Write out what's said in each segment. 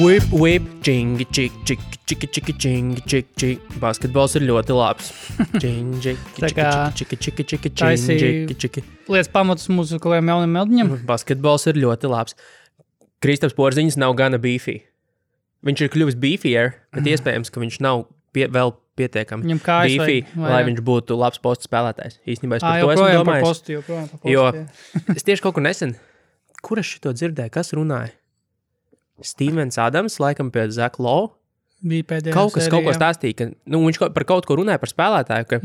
Whip, čingi, čiki. Basketbols ir ļoti labs. Čingi, čiki. Lietas pamatus mūsu kaut kādiem jauniem meldiņiem. Basketbols ir ļoti labs. Kristaps Porziņš nav gana beefy. Viņš ir kļuvis beefier, bet iespējams, ka viņš nav vēl pietiekami beefy, lai viņš būtu labs postu spēlētājs. Īstenībā es par to esmu domājis. Joprojām par postu. Jo es tieši kaut kur nesen, kur es šito dzirdēju, kas runāja? Stevens Adams, laikam pie Zach Lowe. Bija pēdējā kaut ko stāstīja, ka viņš par kaut ko runāja par spēlētāju,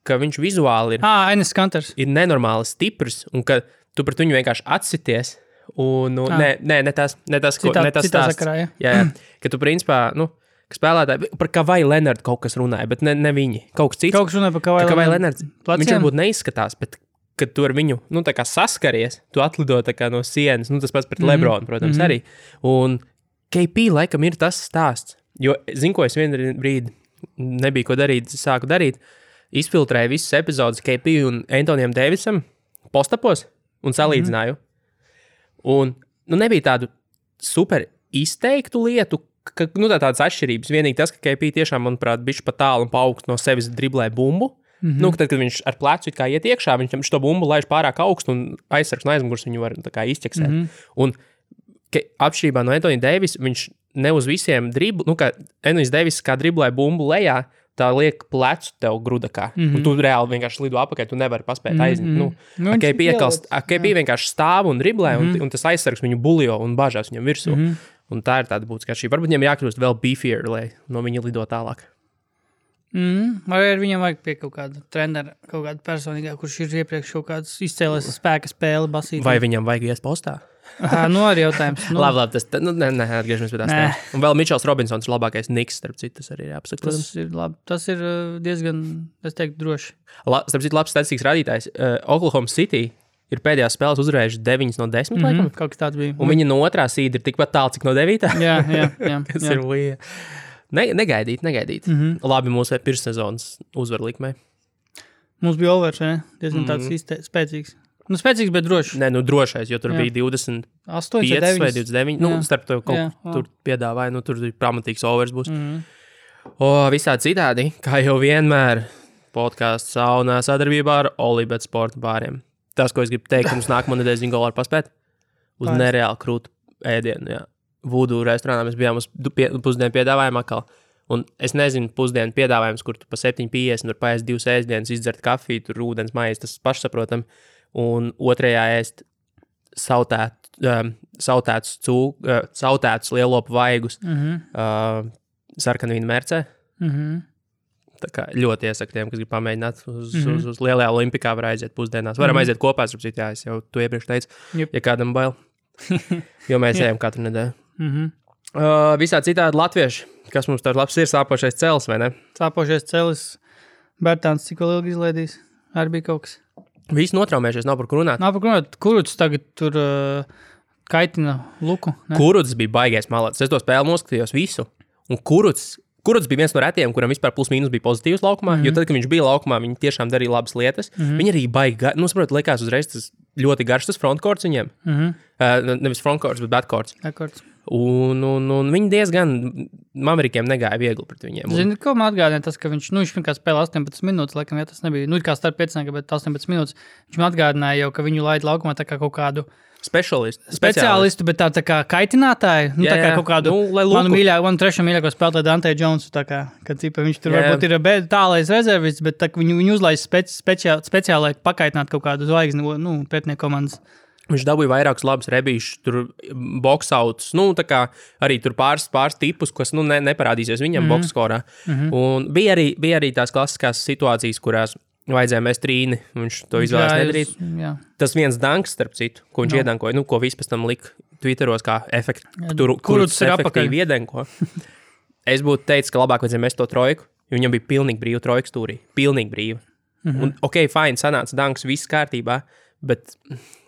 ka viņš vizuāli ir, Enes Kanters. Ir nenormāli stiprs, un ka tu pret viņu vienkārši atsities. Un, ne tas stāsts. Sakarā, jā, ka tu principā, ka spēlētāji, par Kawhi Leonard kaut kas runāja, bet ne viņi. Kaut kas cits. Kaut kas runāja par Kawhi Leonard. Viņš varbūt neizskatās, bet kad tu ar viņu, tā kā saskaries, tu atlido tā kā no sienas, tas pats pret Lebronu, protams, arī. Un KP laikam ir tas stāsts, jo, zinu, ko es vienu brīdi nebija ko darīt, sāku darīt, izfiltrēju visas epizodes KP un Antonijam Davisam postapos un salīdzināju. Un, nebija tādu super izteiktu lietu, ka, tādas atšķirības. Vienīgi tas, ka KP tiešām, manuprāt, bišķi pa tālu un pa augstu no sevis driblē bumbu. Tad, kad viņš ar plecu it kā iet iekšā, viņš šo bumbu laiž pārāk augstu un aizsargs no aizmugures viņu var tā kā izķeksēt. Un atšķirībā no Antonija Davisa, viņš ne uz visiem kā Antonijs Davis kā driblē bumbu lejā, tā liek plecu tev grudakā. Un tu reāli vienkārši lido apakaļ, tu nevari paspēt aiziet. KP vienkārši stāv un driblē, un tas aizsargs viņu buljo un bažās viņam virsū. Un tā ir tāda būtiskā šī. Varbūt viņam jākļūst vēl beefier, lai no viņa lido tālāk. Vai ar viņam vajag pie kaut kāda trenera, kaut kāda personīgā, kurš ir iepriekš kaut kāds izcēlēs spēka spēli basīt? Vai viņam vajag ies postā? Arī jautājums. Labi, tas, atgriežamies pie tās tā. Un vēl Mičels Robinsons ir labākais Knicks, starp citu, tas arī ir jāpasaka. Tas ir labi, tas ir diezgan, es teiktu, droši. Starp citu, labs statistikas rādītājs. Oklahoma City ir pēdējās spēles uzvarējuši 9 no 10, laikam. Kaut kas tāds bija. Un viņa no otrā sīda ir tikpat tālu, cik no 9. Jā. Kas ir līja. Negaidīt. Labi, mūsu pirmssezonas uzvarlikmē. Mums bija overs, ne? Diezgan tāds spēcīgs. Spēcīgs, bet drošs. Drošais, jo tur bija 25 vai 29. Starp to kaut tur piedāvāja, tur pamatīgs overs būs. Visādi citādi, kā jau vienmēr, podcasts saunā sadarbībā ar Olibet sporta bāriem. Tas, ko es gribu teikt, mums nākamā nedēļas viņa golā paspēt uz nereāli krūtu ēdienu, jā. Vudu restorānā mēs bijām uz pusdienu piedāvājumu atkal. Un es nezinu, pusdienu piedāvājums, kur tu pa 7,50 tur paēst 2 ēstdienas, izdzert kafiju, tur ūdens maizi, tas pašsaprotam. Un otrajā ēst sautētus lielopu vaigus sarkanvīna mercē. Tā kā ļoti iesaku tiem, kas grib pamēģināt uz lielajā olimpikā var aiziet pusdienās. Varam aiziet kopā, es jau to iepriekš teicu, ja kādam bail. Jo mēs ejam katru nedēļu. Visā citādi latvieši, kas mums tāds labs ir, sāpošais celis, vai ne? Sāpošais celis, Bertāns, cik vēl ilgi izlaidīs? Arī bija kaut kas. Visi notraumējušies, nav par ko runāt. Kuruts tagad tur kaitina luku. Ne? Kuruts bija baigais malāts. Es to spēli noskatījos visu. Un Kuruts bija viens no retiem, kuram vispār plus mīnus bija pozitīvs laukumā, jo tad, kad viņš bija laukumā, viņi tiešām darīja labas lietas. Viņi arī baigi, likās uzreiz tas ļoti garš tas frontkorts viņiem. Nevis frontkorts, bet backkorts. Un viņi diezgan Amerikiem negāja viegli pret viņiem. Zini, ko man atgādināja tas, ka viņš vienkārši spēlē 18 minūtes, laikam, ja tas nebija, kā starp 5, bet 18 minūtes. Viņš man atgādināja jau, ka viņu laid laukumā tā kā kaut kādu speciālistu, bet tā kā kaitinātāju, tā kā kaut kādu manu trešo mīļāko spēlētāju Dante Jonesu, tā kā, kad viņš tur varbūt ir tālais rezervists, bet tā, viņu uzlaiž speciāli pakaitināt kaut kādu zvaigzni, pretinieku komandas. Viņš dabūja vairākus labus rebīšus, tur boksautus, tā kā arī tur pāris tipus, kas, neparādīsies viņam bokskorā. Un bija arī tās klasiskās situācijas, kurās vajadzēja mest trīni, viņš to izvēlēs nedarīt. Tas viens danks, starp citu, ko viņš iedankoja, ko viss pēc tam lika Twitteros kā kurus efektīvi iedanko. Es būtu teicis, ka labāk vajadzēja mest to trojku, jo viņam bija pilnīgi brīva trojka stūrī. Pilnīgi brīva. Un, fine, sanāca danks, viss kārtībā, bet,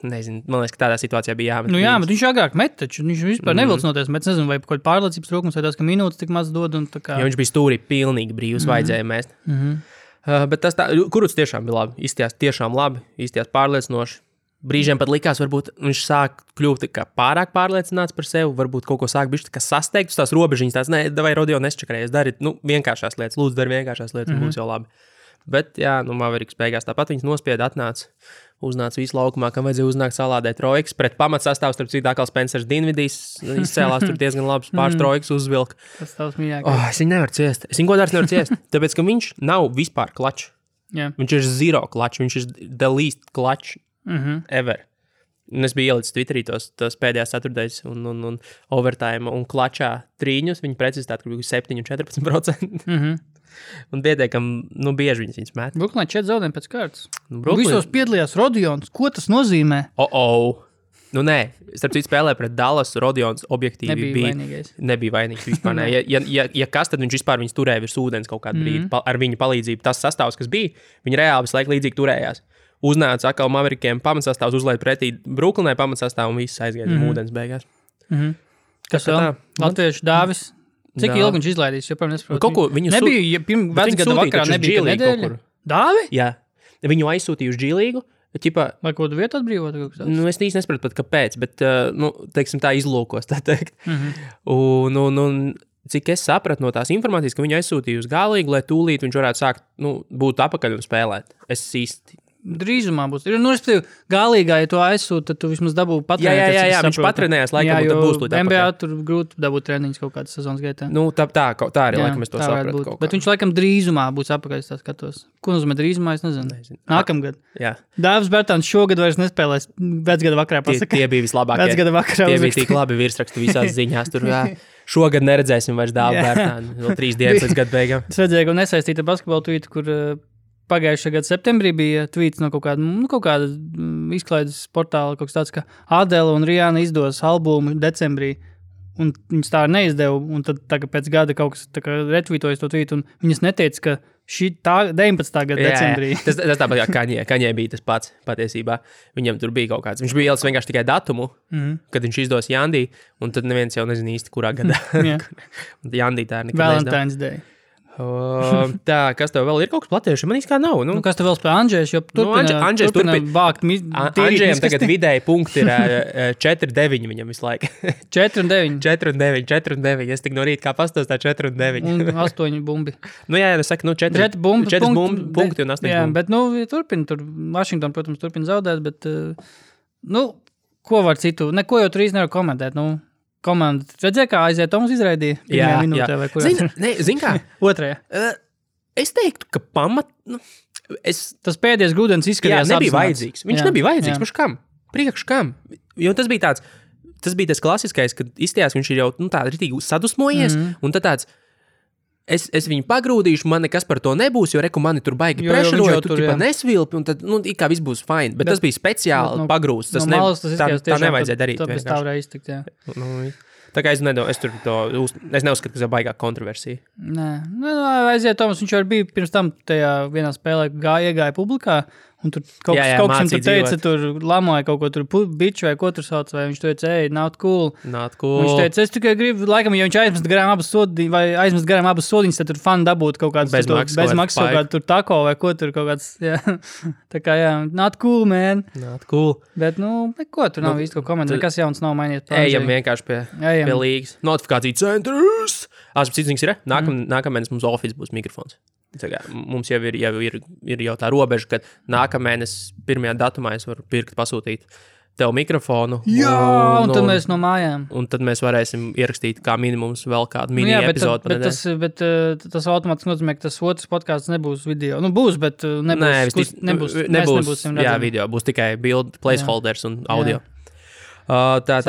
nezinu, man liekas, ka tādā situācijā bija jāmet. Bet viņš agrāk met, taču viņš vispār nevilcinoties, bet nezinu, vai kaut pārliecības trūkums, vai tas, ka minūtes tik maz dod un tā kā. Jo viņš bija stūrī pilnīgi brīvs, vajadzēja mest. Bet tas tā, Kuruts tiešām bija labi, izstījās tiešām labi, izstījās pārliecinoši. brīžiem pat likās, varbūt viņš sāk kļūt pārāk pārliecināts par sevi, varbūt kaut ko sāk bišķi sasteigt uz tās robežiņas, tās, vai Rodeo nesčakarējies, dari, vienkāršās lietas, lūdzu, dari vienkāršās lietas, būs jau labi. Bet, jā, Mavericks beigās tāpat viņas nospieda, uznāca visu laukumā, kam vajadzēja uznākt salādēt trojkas, pret pamatsastāvs, starp citu, atkal Spencers Dinvidijs izcēlās, tur diezgan labs pāris trojkas uzvilka. Tas tavs mīļākais. Es viņu nevaru ciest, es viņu godārs nevaru ciest, tāpēc, ka viņš nav vispār klačs. Yeah. Viņš ir zero klačs, viņš ir the least klačs ever. Un es biju ielicis Twitterī tos pēdējās ceturtdaļas un overtime un klačā trīņus, viņa precizitāte bija 7-14%. Un pietiekam, bieži viņas met. Brooklynā 4 zaudējumi pēc kārtas. Visos piedalījās Rodions. Ko tas nozīmē? Nē, starp citu spēlē pret Dallas, Rodions objektīvi nebija vainīgs vispār. Ja kas, tad viņš vispār viņus turēja virs ūdens kaut kādu brīdi. Ar viņa palīdzību tas sastāvs, kas bija, viņi reāli visu laiku līdzīgi turējās. Uznāca atkal Maverikiem pamatsastāvs, uzlaid pretī Brooklynai pamatsastāvu un viss aizgāja ūdens beigās. Kas vēl? Latviešu Dāvis. Cik ilgi viņš izlaidīs? Joprojām nesaprotu. Kaut ko viņu nebija, vecgada vakarā nebija nedēļa. Dāvi? Jā. Viņu aizsūtīja uz G-līgu. Vai kaut kādu vietu atbrīvot? Es īsti nesapratu pat kāpēc, bet, teiksim tā izlūkos, tā teikt. Un cik es sapratu no tās informācijas, ka viņu aizsūtīja uz G-līgu, lai tūlīt viņš varētu sākt, būt apakaļ un spēlēt. Es īsti... Drīzumā būs. Respektīvi, Galīgā, ja to aizsūt, tad tu vismaz dabū patrenēt. Jā, viņš patrenējās laikam, un tad būs tūlīt apakaļ. NBA tur grūti dabūt treniņus kaut kādas sezonas gaitā. Tā arī laikam es to sapratu. Bet viņš laikam drīzumā būs apakaļ, es tā skatos. Ko nozīmē drīzumā, es nezinu. Nākamgad. Dāvis Bērtāns šogad vairs nespēlēs vecgada vakarā pasaka. Tie bija vislabākie. Vecgada vakarā tie bija tik labi virsraksti visās ziņās. Tur, šogad neredzēsim vairs Dāvu Bērtānu. Vēl 3 dienas līdz gada beigām. Es redzēju, ka nesaistīta basketbola tweetu, kur pagājušā gada septembrī bija tweets no kaut kāda izklaides portāla, kaut kas tāds, ka Adele un Rihanna izdos albumu decembrī, un viņas tā neizdeva, un tad tagad pēc gada kaut kas retvītojas to tweetu, un viņas neteica, ka šī 19. gada decembrī. Tas tāpat kā Kaņē bija tas pats patiesībā. Viņam tur bija kaut kāds. Viņš bija ielicis vienkārši tikai datumu, kad viņš izdos Jandī, un tad neviens jau nezina īsti, kurā gadā. Un Jandī tā nekad Valentine's Day. Tā, kas tev vēl ir kaut kas platieši? Man īsti kā nav. Kas tev vēl spēlē Andžējs, jo turpina vākt Andžējam tagad vidēji punkti ir 4-9 viņam visu laiku. 4-9. Es tik no rīta kā pastos tā 4-9. Un 8 bumbi. Jā, es saku, 4 punkti un 8 bumbi. Jā, bet, turpina tur. Washington, protams, turpina zaudēt, bet, ko var citu? Neko jau tur īsti nevar komentēt, Komanda. Redzēja, kā aiziet Toms izraidīja? Jā. Zin kā? Otrajā. Es teiktu, ka Tas pēdējais grūdienis izskatījās nebija vajadzīgs. Viņš nebija vajadzīgs. Priekš kam? Jo tas bija tas klasiskais, kad izstījās, viņš ir jau tā ritīgi sadusmojies, un tad tāds, es viņu pagrūdīšu, man nekas par to nebūs, jo reku mani tur baigi prešaroja, tu tipa nesvilpi, un tad, kā viss būs fine. Bet tas bija speciāli pagrūsts. Tā nevajadzēja darīt. Tas tā varēja iztikt, jā. Tā kā es neuzskatu, ka tas ir baigā kontroversija. Nē, aiziet Toms, viņš jau bija pirms tam tajā vienā spēlē iegāja publikā, un tur kaut kas tur teica, tur lamoja kaut ko tur biču vai ko tur sauc, vai viņš teica, not cool. Viņš teica, es tikai gribu, laikam, ja viņš aizmest garām abas sodiņas, tad tur fani dabūt kaut kāds bez maksas kaut kādu tur tako vai ko tur kaut kāds, tā kā, not cool, man. Not cool. Bet, ko tur nav īsti ko komentēt, nekas jauns nav mainījies. Ejam vienkārši pie līgas. Notifikācija centrs. Cits ir, nākamēnes mums Office būs mikrofons. Mums jau ir jau tā robeža, ka nākamēnes 1. datumā es varu pasūtīt tev mikrofonu. Jā, un tad mēs no mājām. Un tad mēs varēsim ierakstīt kā minimums vēl kādu mini epizodu. Bet tas automātiski nozīmē, ka tas otrs podcasts nebūs video. Būs, bet nebūs. Jā, video. Būs tikai build, placeholders un audio. Tā.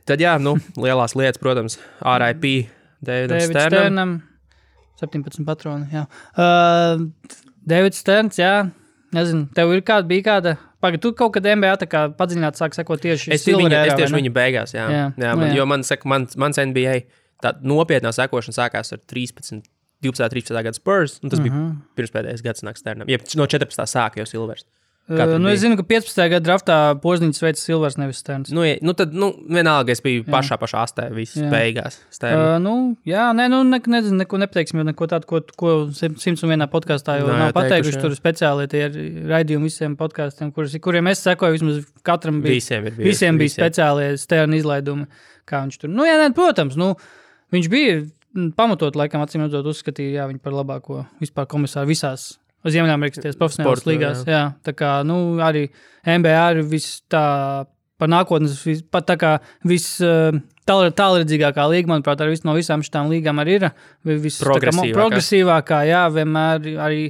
Tad lielās lietas, protams, R.I.P. Davidam Sternam. 17 patroni, jā. Davids Sterns, jā. Nezinu, tev bija kāda... Tu kaut kad NBA tā kā padziļināt sāk sekot tieši Silver Era, Es tieši viņu beigās, jā. Jo mans NBA tā nopietnā sekošana sākās ar 12, 13. gada Spurs, un tas bija pirms pēdējais gads nāk Sternam. No 14. sāka jau Silvers. Es zinu, ka 15. gada draftā Pozniņš veica Silvers, nevis Sterns. Tad vienalga es biju pašā astē, visas beigās. Nezinu, neko nepateiksim, jo neko tādu, ko 101. podkāstā jau nav pateikuši. Tur speciāli tie raidījumi visiem podkāstiem, kuriem es sekoju, vismaz katram visiem bija speciālie Sterna izlaidumi, kā viņš tur. Protams, viņš bija pamatot, laikam, acīm redzot, uzskatīja, viņu par labāko vispār komisāru visās Ziemeļamerikas profesionālās līgās. Jā. Tā kā, arī NBA ir par nākotnes, pat tā kā tālredzīgākā līga, manuprāt, no visām šitām līgām arī ir progresīvākā, jā, vienmēr arī,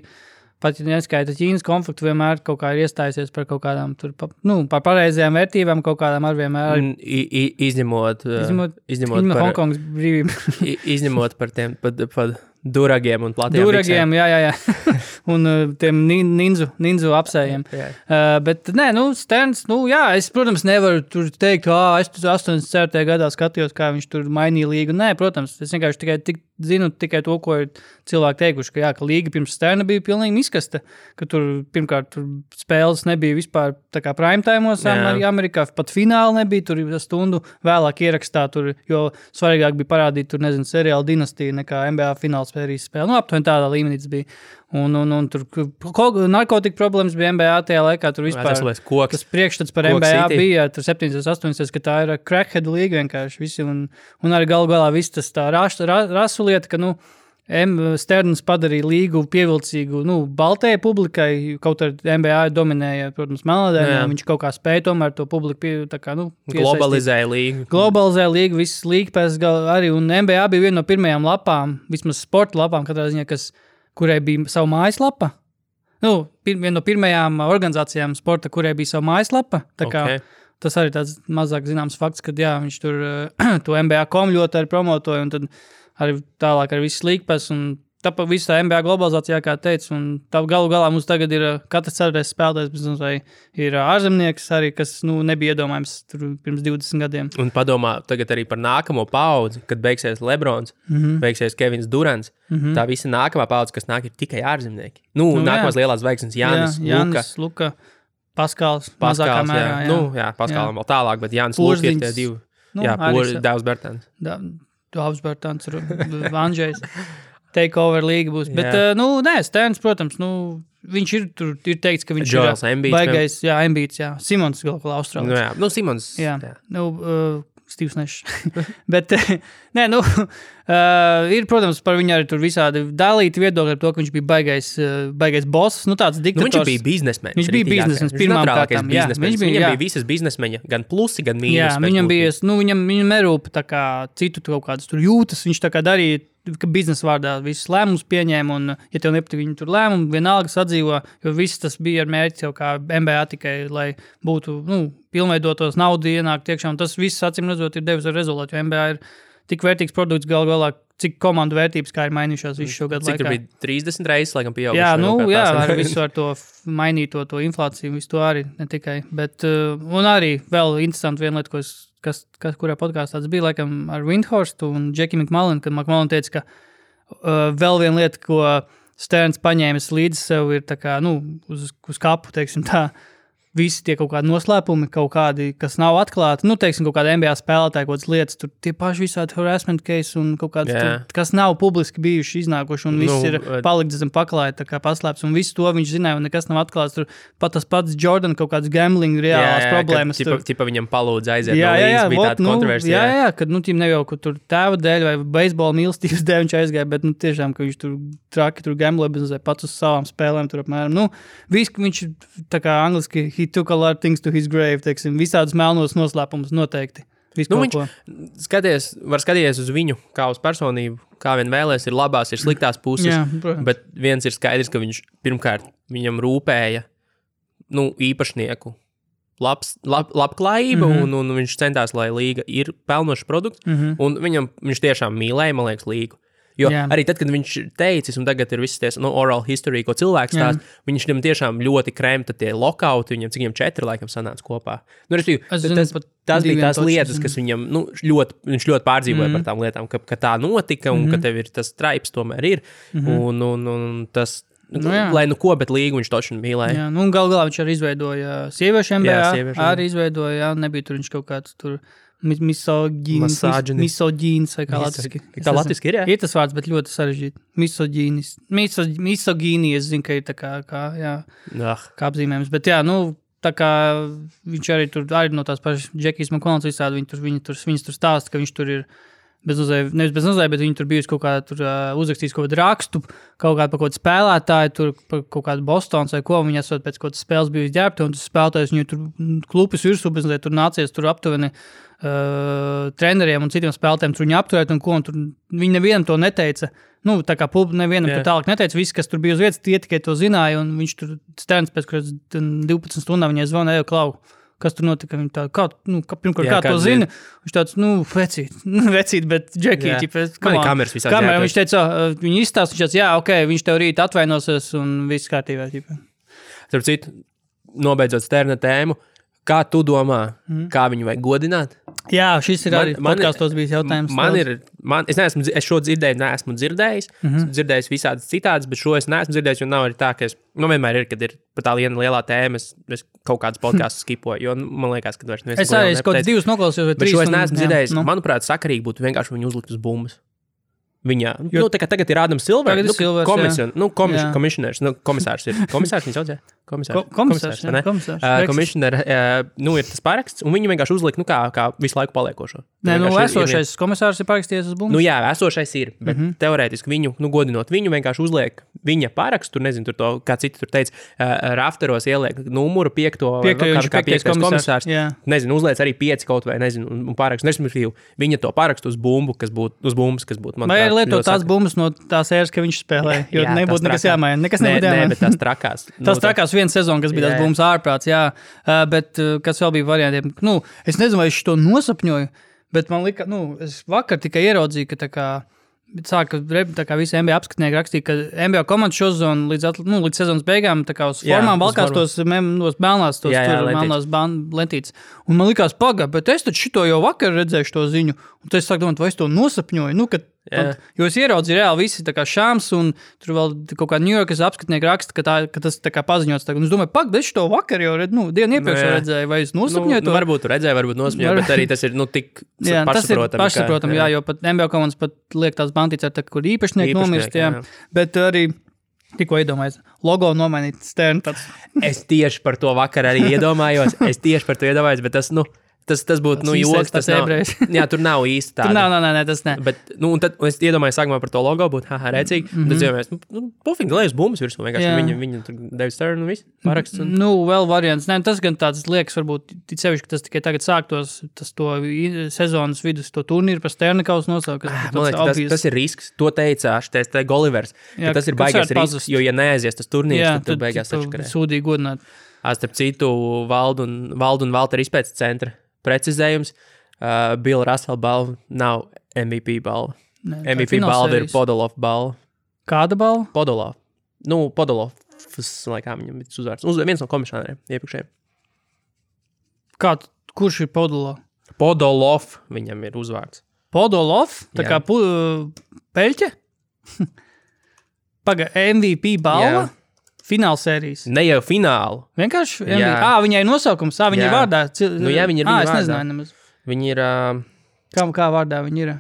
pat ja neskaita Ķīnas konfliktu, vienmēr kaut kā ir iestājusies par kaut kādām tur, par pareizajām vērtībām, kaut kādām ar vienmēr. Izņemot par Hongkongas brīvību. Izņemot par tiem, par duragiem un platiem duragiem, jā. Un tiem ninzu apsējiem. Bet, Sterns, es, protams, nevaru tur teikt, es 84. gadā skatījos, kā viņš tur mainīja līgu. Nē, protams, es vienkārši zinu tikai to, ko ir cilvēki teikuši, ka līga pirms Sterna bija pilnīgi miskasta, ka tur, pirmkārt, spēles nebija vispār tā kā prime time'os Amerikā, pat fināli nebija, tur stundu vēlāk ierakstā, tur, jo svarīgāk bija parādīt, tur, seriāla dinastija nekā NBA fināls spēlīs spēle. Aptuveni tādā līmenī tas bija. Un tur narkotika problēmas bija NBA tajā laikā, tur vispār tas priekšstats par NBA bija, tur 7-8, ka tā ir crackhead līga vienkārši visi, un arī galu galā viss tas tā rasu lieta, ka, Sterns padarīja līgu pievilcīgu, baltajai publikai, kaut arī NBA dominēja, protams, melnādainiem, viņš kaut kā spēja tomēr to publiku globalizēja līgu, visas līga pēc arī, un NBA bija viena no pirmajām lapām, vismaz sporta lapām, katrā ziņā, kurai bija savu mājaslapa. Viena no pirmajām organizācijām sporta, kurai bija savu mājaslapa. Tā kā tas arī tāds mazāk zināms fakts, kad viņš tur to NBA.com ļoti arī promotoja, un tad arī tālāk ar visas līgpas, un tāpēc visā NBA globalizācijā, kā teicu, un tā galu galā mums tagad ir katrs ceturtais spēlētājs, vai ir ārzemnieks arī, kas nebija iedomājams tur pirms 20 gadiem. Un padomā tagad arī par nākamo paudzi, kad beigsies Lebrons, beigsies Kevins Durants, tā visa nākamā paudze, kas nāk, ir tikai ārzemnieki. Nākamās lielās zvaigznes Jānis, Luka, Paskals mazākā mērā. Paskalam vēl tālāk, bet Jānis Luka ir tie divi. Dāvs Bertāns. Dāvs Bertāns, Andžejs. Takeover līga būs. Bet, Sterns, protams, viņš ir teikts, ka viņš Joels ir baigais, Embiids, Simons galu galā Austrālis. Simons. Stīvs Nešs. Bet, ir, protams, par viņu arī tur visādi dalīti viedokļi ar to, ka viņš bija baigais boss, tāds diktators. Viņš bija biznesmenis. Viņš bija biznesmenis pirmām kārtām. Viņam bija visas biznesmeņa, gan plusi, gan mīnus. Viņam bija, viņam nerūpa tā kā citu kaut kādas tur jūtas, viņš tā kā darīja, ka biznesa vārdā visus lēmumus pieņēma, un, ja tev nepatīk viņu tur lēmumu, vienalga sadzīvo, jo viss tas bija ar mērķi jau kā NBA tikai, lai būtu, pilnveidotos naudu ienākt iekšā, un tas viss, acīm redzot, ir devis ar rezultātu, jo NBA ir tik vērtīgs produkts galu galā, cik komandu vērtības, kā ir mainījušās visu šo gadu laikā. Cik tur bija 30 reizes, laikam, pieauguši. Ar visu ar to mainīto to inflāciju, visu to arī, ne tikai, bet, un arī vēl interesanti viena lieta, kurā podkāstā tas bija, laikam, ar Windhorstu un Jackie McMullen, kad McMullen teica, ka vēl viena lieta, ko Sterns paņēmis līdzi sev, ir tā kā, uz kapu, teiksim tā, visi tie kaut kādi noslēpumi, kaut kādi, kas nav atklāti, teiksim, kaut kādi NBA spēlētāji, kaut kādas lietas, tur tie paši visādi harassment case un kaut kāds, kas nav publiski bijuši iznākuši, un viss ir palikts zem paklāja, tā kā paslēps, un visu to viņš zināja, un nekas nav atklāts, tur pat tas pats Jordan kaut kāds gambling reālās problēmas. Tipa viņam palūdz aiziet no līdz, bija tāda kontroversija. Jā, kad, tīm neviel, ka tur tēva dēļ vai beisbola mīlestības dēļ viņš aizgāja, bet, tiešām, ka viņš tur traki, tur gambloja, bet pats uz savām spēlēm, tur apmēram, viņš tā kā angliski he took a lot of things to his grave, teiksim, visādus melnos noslēpumus noteikti. Viņš var skatīties uz viņu kā uz personību, kā vien vēlēs, ir labās, ir sliktās puses, bet viens ir skaidrs, ka viņš pirmkārt viņam rūpēja, īpašnieku labklājība, un viņš centās, lai līga ir pelnošs produkts, un viņš tiešām mīlēja, man liekas, līgu. Jo arī tad, kad viņš teicis, un tagad ir visas ties, oral history, ko cilvēks stāst, viņš viņam tiešām ļoti kremta tie lokauti, viņam 4 laikam sanāca kopā. Tas bija tās lietas, kas viņam, viņš ļoti pārdzīvoja par tām lietām, ka tā notika, un ka tev ir tas traips tomēr ir, un tas, lai nu ko, bet līgu viņš toču mīlēja. Jā, nu galā viņš arī izveidoja sieviešu NBA, arī izveidoja, jā, nebija tur viņš kaut kāds tur misogīnis vai kā latviski. Tā latviski ir, jā? Ir tas vārds, bet ļoti sarežģīti. Misogīni, es zinu, ka ir tā kā apzīmējums, bet jā, nu, tā kā viņš arī tur, arī no tās pašas Džekijas McConnells visādi, viņas tur stāsta, ka viņš tur ir nevis bez nozēja, bet viņi tur bijusi kaut kā tur uzrakstījis kaut kādu rakstu, kaut kādu par kaut kādu spēlētāju, tur par kaut kādu Bostons vai ko, viņi esot pēc kaut kādas spēles bijusi ģērbti, un tas spēlētājs viņu tur klupis virsū, bet tur nācies tur aptuveni treneriem un citiem spēlētājiem tur viņu apturēt, un ko, un tur viņi nevienam to neteica, nu, tā kā nevienam to tālāk neteica, visi, kas tur bija uz vietas, tie tikai to zināja, un viņš tur Sterns pēc 12 stundām viņai zvanīja, Klau, kas tur notika, viņi tā, pirmkārt, kā to zina, viņš tāds, vecīt, bet Džekī, kameras visā kamera, viņš teica, viņi izstāst, viņš tāds, jā, ok, viņš tev rīt atvainosies un viss kārtībā, Starp citu, nobeidzot Sterna tēmu, kā tu domā, kā viņu vajag godināt? Jā, šis ir arī podkastos bijis jautājums. Es šo neesmu dzirdējis, dzirdējis visādas citādas, bet šo es neesmu dzirdējis, jo nav arī tā, ka vienmēr ir, kad ir par tā lielā tēma, es kaut kādas podkastus skipoju, jo man liekas, ka vairs es arī kaut kāds 2 noklausījos vai 3. Bet šo es neesmu dzirdējis. Manuprāt, sakarīgi būtu vienkārši viņu uzlikt uz bumbas. Viņā. Tagad ir Ādams Silvers, komisionērs, komisārs ir. Komisārs viņu saucē? Komisārs, ne? Komisionēr, ir tas paraksts, un viņi vienkārši uzlika, kā visu laiku paliekošo. Nē, esošais komisārs ir parakstījies uz bumbu. Jā, esošais ir, bet teorētiski viņu, godinot viņu, vienkārši uzliek viņa parakstu, tur nezinu, tur to, kā citi tur teica, rafteros ieliek numuru 5. kā 5. komisārs. Nezinu, uzliec arī 5 kaut vai, nezinu, un parakstu. Respektīvi, viņa to parakstu uz bumbu, kas būtu, manuprāt, vai lietot tās bumbas no tās ēras, ka viņš spēlē, jo nebūtu nekas jāmaina. Nekas nebūtu jāmaina. Nē, bet tās trakās. Tās trakās viena sezona, kas bija tās bumbas ārprāts, jā. Bet kas vēl bija variantiem? Es nezinu, vai es to nosapņoju, bet man lika, es vakar tikai ieraudzīju, ka tā kā visi NBA apskatnieki rakstīja, ka NBA komandas šozonu līdz sezonas beigām tā kā uz formām valkās tos melnās, melnās lentītes. Un man likās bet es taču šito jau vakar redzēju to ziņu, un tad es sāku domāt, vai es to nosapņoju, jo es ieraudzīju reāli visi tā kā Šāms, un tur vēl kaut kā New Yorkas apskatnieki raksta, ka tas tā kā paziņots. Un es domāju, es šito vakar jau dienu iepriekš redzēju, vai es nosapņoju to? Varbūt redzēju, varbūt nosapņoju, bet arī tas ir tik pašsaprotami. Pašsaprotami, jo pat NBA komandas pat liek tās bantītes ar kur īpašnieki nomirst, jā. Bet arī tikko iedomājies, logo nomainīt Stern tāds. Es tieši par to vakar arī iedomājos, bet tas būtu, joks, tas nav. Jā, tur nav īsti tāda. Nē, tas ne. Bet, un tad es iedomājos sākumā par to logo, būtu, rēcīgi. Un tad iedomājos, pofīgi, lai uz bumbas virsmu, vienkārši viņa tur David Stern un viss, paraksts. Vēl variants. Nē, tas gan tāds liekas, varbūt, sevišķi, ka tas tikai tagad sāktos, to sezonas vidus, to turnīru par Sternikaus nosaukt. Man liekas, tas ir risks. To teica te Golivers, ka tas ir baigais risks, jo, ja neaizies tas turnīrs, tad beigās sačakarē. Sūdīgi godināt. Starp citu, Valdu un Valteru izpētes centra precizējums, Bill Russell balva nav MVP balva. MVP balva ir Podolov balva. Kāda balva? Podolov. Podolovs, laikā viņam ir uzvārds. Viens no komisāriem iepriekšējiem. Kurš ir Podolov? Podolov viņam ir uzvārds. Podolov? Tā kā peļķe? MVP balva? Jā. Fināla sērijas. Ne jau finālu. Vienkārši? Viņai ir nosaukums, viņai vārdā. Jā, viņa ir viņa vārdā. Es nezināju nemaz. Viņa ir... Kā vārdā viņa ir?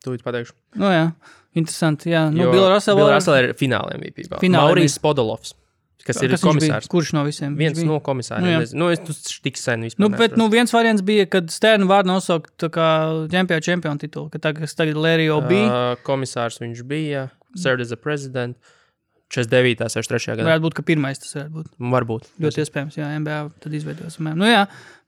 Tūlīt pateikšu. Jā, interesanti, jā. Bill Russell ir fināla MVP. Maurīs Podolovs, kas ir komisārs. Kurš no visiem? Viens no komisāriem. Es tik sen vispār. Bet viens variants bija, kad Sternu vārdu nosaukt tā kā čempionu titulu, ka tagad Larry O'B. Komisārs viņš bija, served as a president. 49. 63. gadā. Varētu būt, ka pirmais tas varētu būt. Varbūt. Ļoti iespējams, jā, NBA tad izveidos.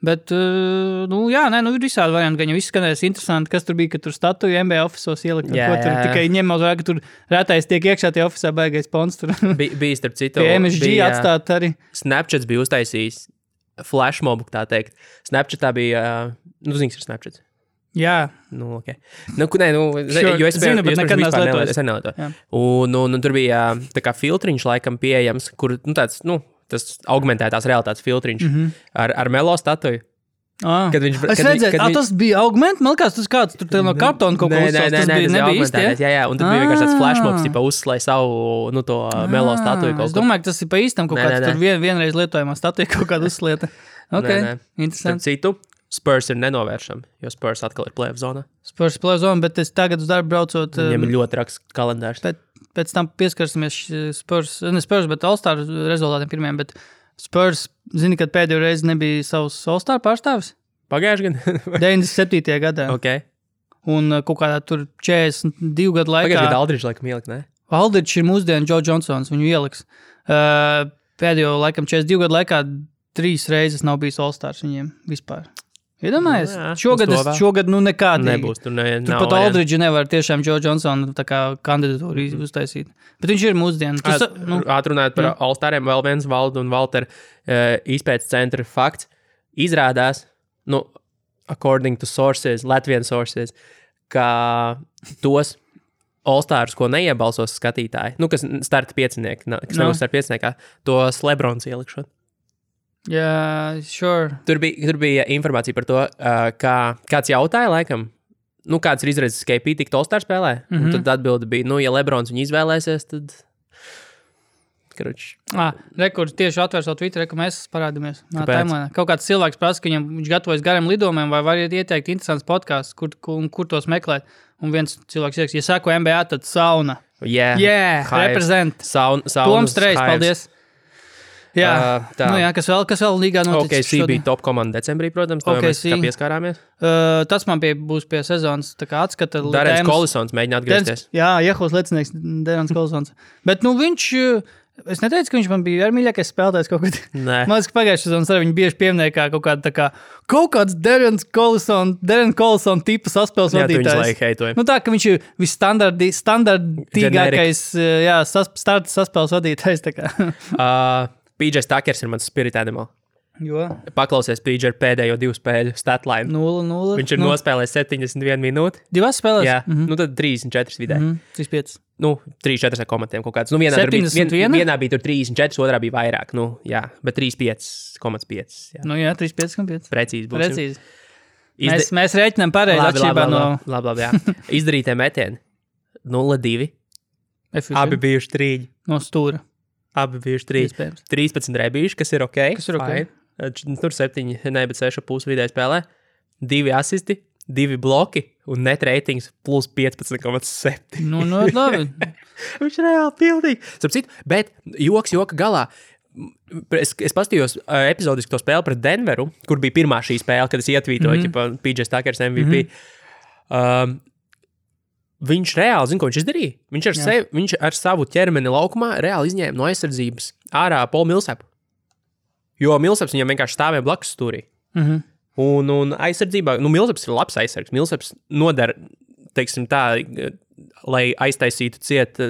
Bet, ir visādi varianti, gan jau viss skanēs interesanti, kas tur bija, ka tur statuju NBA ofisos ielikt, tur tikai ņem uz vērā, ka tur rētais tiek iekšā tie ofisā baigais pons tur. Bija starp citu. Pie MSG atstāt arī. Snapchats bija uztaisījis flashmobu, tā teikt. Snapchatā bija, zināms, ir Snapchats. Jā. Okay. Jo es zinu, bet nekad nelietoju. Un tur bija tā kā filtriņš laikam pieejams, kur, tas augmentētās realitātes filtriņš ar Melo statuju. Kad viņš, es redzēju, tas bija augment, man liekas, tas kāds tur no kartona kaut ko uzsāks, tas nebija īsti, jā, un tad bija vienkārši tāds flashmobs, tipa uzslēj savu, to melo statuju kaut ko. Es domāju, ka tas ir pa īstam kaut kāds tur vienreiz lietojumā statuja kaut kāda uzslieta. Ok, interesanti. Citu, Spurs ir nenovēršami, jo Spurs atkal ir play-off zonā. Spurs play-off zona, bet es tagad uz darbu braucot. Viņam ir ļoti raksts kalendārs. Pēc tam pieskarsimies Spurs, bet All-Star rezultātiem pirmiem, bet Spurs, zini, kad pēdējo reizi nebija savs All-Star pārstāvis? Pagājuši gan? 97. gadā. Ok. Un kaut kādā tur 42 gadu laikā. Pagājuši gadu Aldridge laikam ielikt, ne? Aldridge ir mūsdienu Joe Johnsons, viņu ieliks. Pēdējo laikam 42 gadu laikā 3 reizes nav bijis All-Stars viņiem vispār. Iedomājies? Šogad nekādīgi. Nebūs, tur pat Aldridge nevar tiešām Joe Johnsonu tā kā kandidatūru uztaisīt. Bet viņš ir mūsdienu. Atrunājot par All-Stariem, vēl viens Valdu un Valter izpētes centra fakts. Izrādās, according to sources, Latvian sources, ka tos All-Stars, ko neiebalsos skatītāji, kas starta piecinieki, kas nebūs starta pieciniekā, tos Lebrons ielikšot. Jā, sure. Tur bija informācija par to, kāds jautāja, laikam, kāds ir izredzes KP tikt All-Star spēlē. Un tad atbilde bija, ja Lebrons viņu izvēlēsies, tad... Rekords tieši atver savu Twitter, ka mēs parādamies. Kaut kāds cilvēks prasa, ka viņš gatavojas gariem lidojumiem, vai var ieteikt interesants podcasts, kur tos meklēt. Un viens cilvēks ieks, ja sako NBA, tad sauna. Yeah, represent. Toms Trejs, paldies. Jā, kas vēl līgā noticis? OKC bija top komanda decembrī, protams, to mēs kā pieskārāmies. Tas man būs pie sezonas tā kā atskata. Darens Kolisons mēģina atgriezties. Jā, Jehos lecinieks Darens Kolisons. Bet viņš, es neteicu, ka viņš man bija ar mīļākais spēlētājs kaut kad. Nē. Man liekas, ka pagājušajā sezonas arī viņi bieži pieminēja kā kaut kāds Darens Kolison tipa saspēles vadītājs. Tā, ka viņš ir visstandartīgākais saspēles vadītājs. Tā kā. PJ Stakers ir mans spirit animal. Jo. Paklausies PJ pēdējo 2 spēļu statline. 0-0. Viņš ir nospēlējis 71 minūti. 2 spēlēs? Jā, tad 34 vidē. 35. 3-4 ar komatiem kaut kāds. Vienā bija tur 34, otrā bija vairāk. Bet 35,5. Jā, 35,5. Precīzi būs. Precīzi. Mēs rēķinām pareizi atšķirībā no... Labi, jā. Izdarītie metieni. 0-2. Abi bijuši 3. No stūra. Abi bijuši 3. 13 rebīši, kas ir ok. Tur 7, bet 6,5 vidēji spēlē. 2 asisti, 2 bloki un net ratings plus 15,7. Labi. Viņš reāli pildīgi. Bet joka galā. Es paskatījos epizodiski to spēli pret Denveru, kur bija pirmā šī spēle, kad es ietvītoju, PJ Stakers MVP. Viņš reāli zina, ko viņš izdarīja. Viņš ar savu ķermeni laukumā reāli izņēma no aizsardzības ārā Paulu Millsapu. Jo Millsaps viņam vienkārši stāvēja blakus stūrī. Un aizsardzībā, Millsaps ir labs aizsargs. Millsaps nodara, teiksim tā, lai aiztaisītu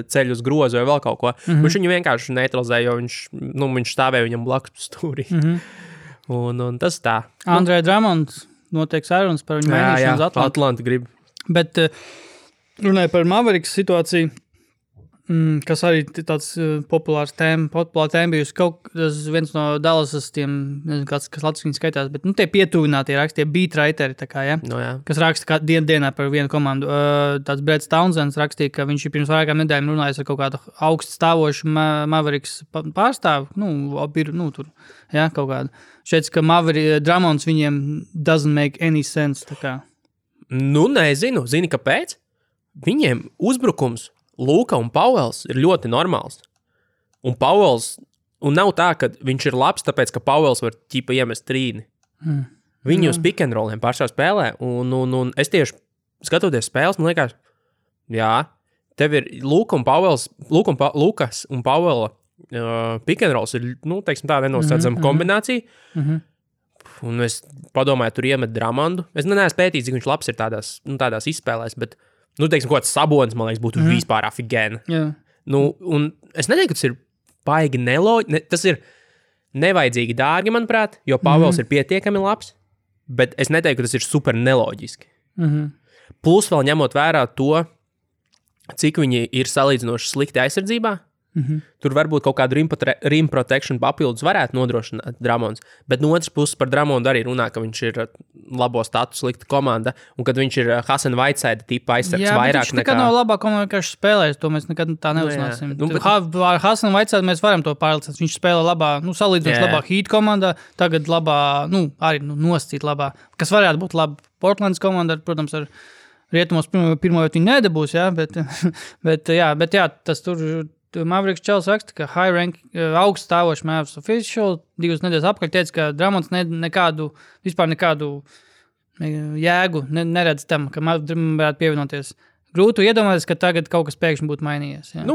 ceļu uz grozu vai vēl kaut ko. Viņš viņu vienkārši neutralizēja, jo viņš stāvēja viņam blakus stūrī. Un tas tā. Andrei Drummond notiek sarunas par viņu mainīšanu uz Atlantu. Atlanta grib. Bet... Runāja par Mavericks situāciju, kas arī tāds populāra tēma bijusi. Viens no Dallasas tiem, nezinu, kas latviski skaitās, bet tie pietuvinātie raksti, tie beatwriteri, kas raksta dienā par vienu komandu. Tāds Brett Townsends rakstīja, ka viņš ir pirms vairākām nedēļām runājis ar kaut kādu augstu stāvošu Mavericks pārstāvu. Tur, kaut kādu. Šeit, ka Drummonds viņiem doesn't make any sense. Nezinu. Zini, kāpēc? Viņiem uzbrukums Luka un Pauels ir ļoti normāls. Un nav tā, ka viņš ir labs, tāpēc, ka Pauels var iemest trīni. Viņi uz pick and rolliem pašā spēlē. Un es tieši skatoties spēles, man liekas, tev ir Lukas un Pauela pick and rolls ir, tā nenosacama kombinācija. Un es padomāju, tur iemet Drummondu. Es neesmu pētījis, cik viņš labs ir tādās izspēlēs, bet kaut kāds Sabonis, man liekas, būtu vispār afigēna. Un es neteiktu, ka tas ir baigi neloģiski. Tas ir nevajadzīgi dārgi, manuprāt, jo Pavels ir pietiekami labs, bet es neteiktu, ka tas ir super neloģiski. Plus vēl ņemot vērā to, cik viņi ir salīdzinoši slikti aizsardzībā, Tur varbūt kaut kādu rim protection papildus varētu nodrošināt Dramons, bet no otras puses par Dramondu arī runā, ka viņš ir labo statusu slikta komanda, un kad viņš ir Hasan Whiteside tipa aizsargs vairāk nekā... Jā, bet viņš nekad nav labā komanda, kā viņš spēlēs, to mēs nekad tā neuznāsim. Ar Hasan Whiteside mēs varam to pārlicināt, viņš spēlē labā, salīdzinoši labā Heat komandā, tagad labā, arī noscīt labā, kas varētu būt laba Portlands komanda, protams, ar Rietumos pirmo vietu viņi nedabūs, jā, bet tas tur Mavericks Čels raksta, ka high rank, augsts stāvošs Mavs official 2 nedēļas apkārt teica, ka Dramons vispār nekādu jēgu neredz tam, ka varētu pievienoties. Grūti iedomāties, ka tagad kaut kas pēkšņi būtu mainījies. Jā.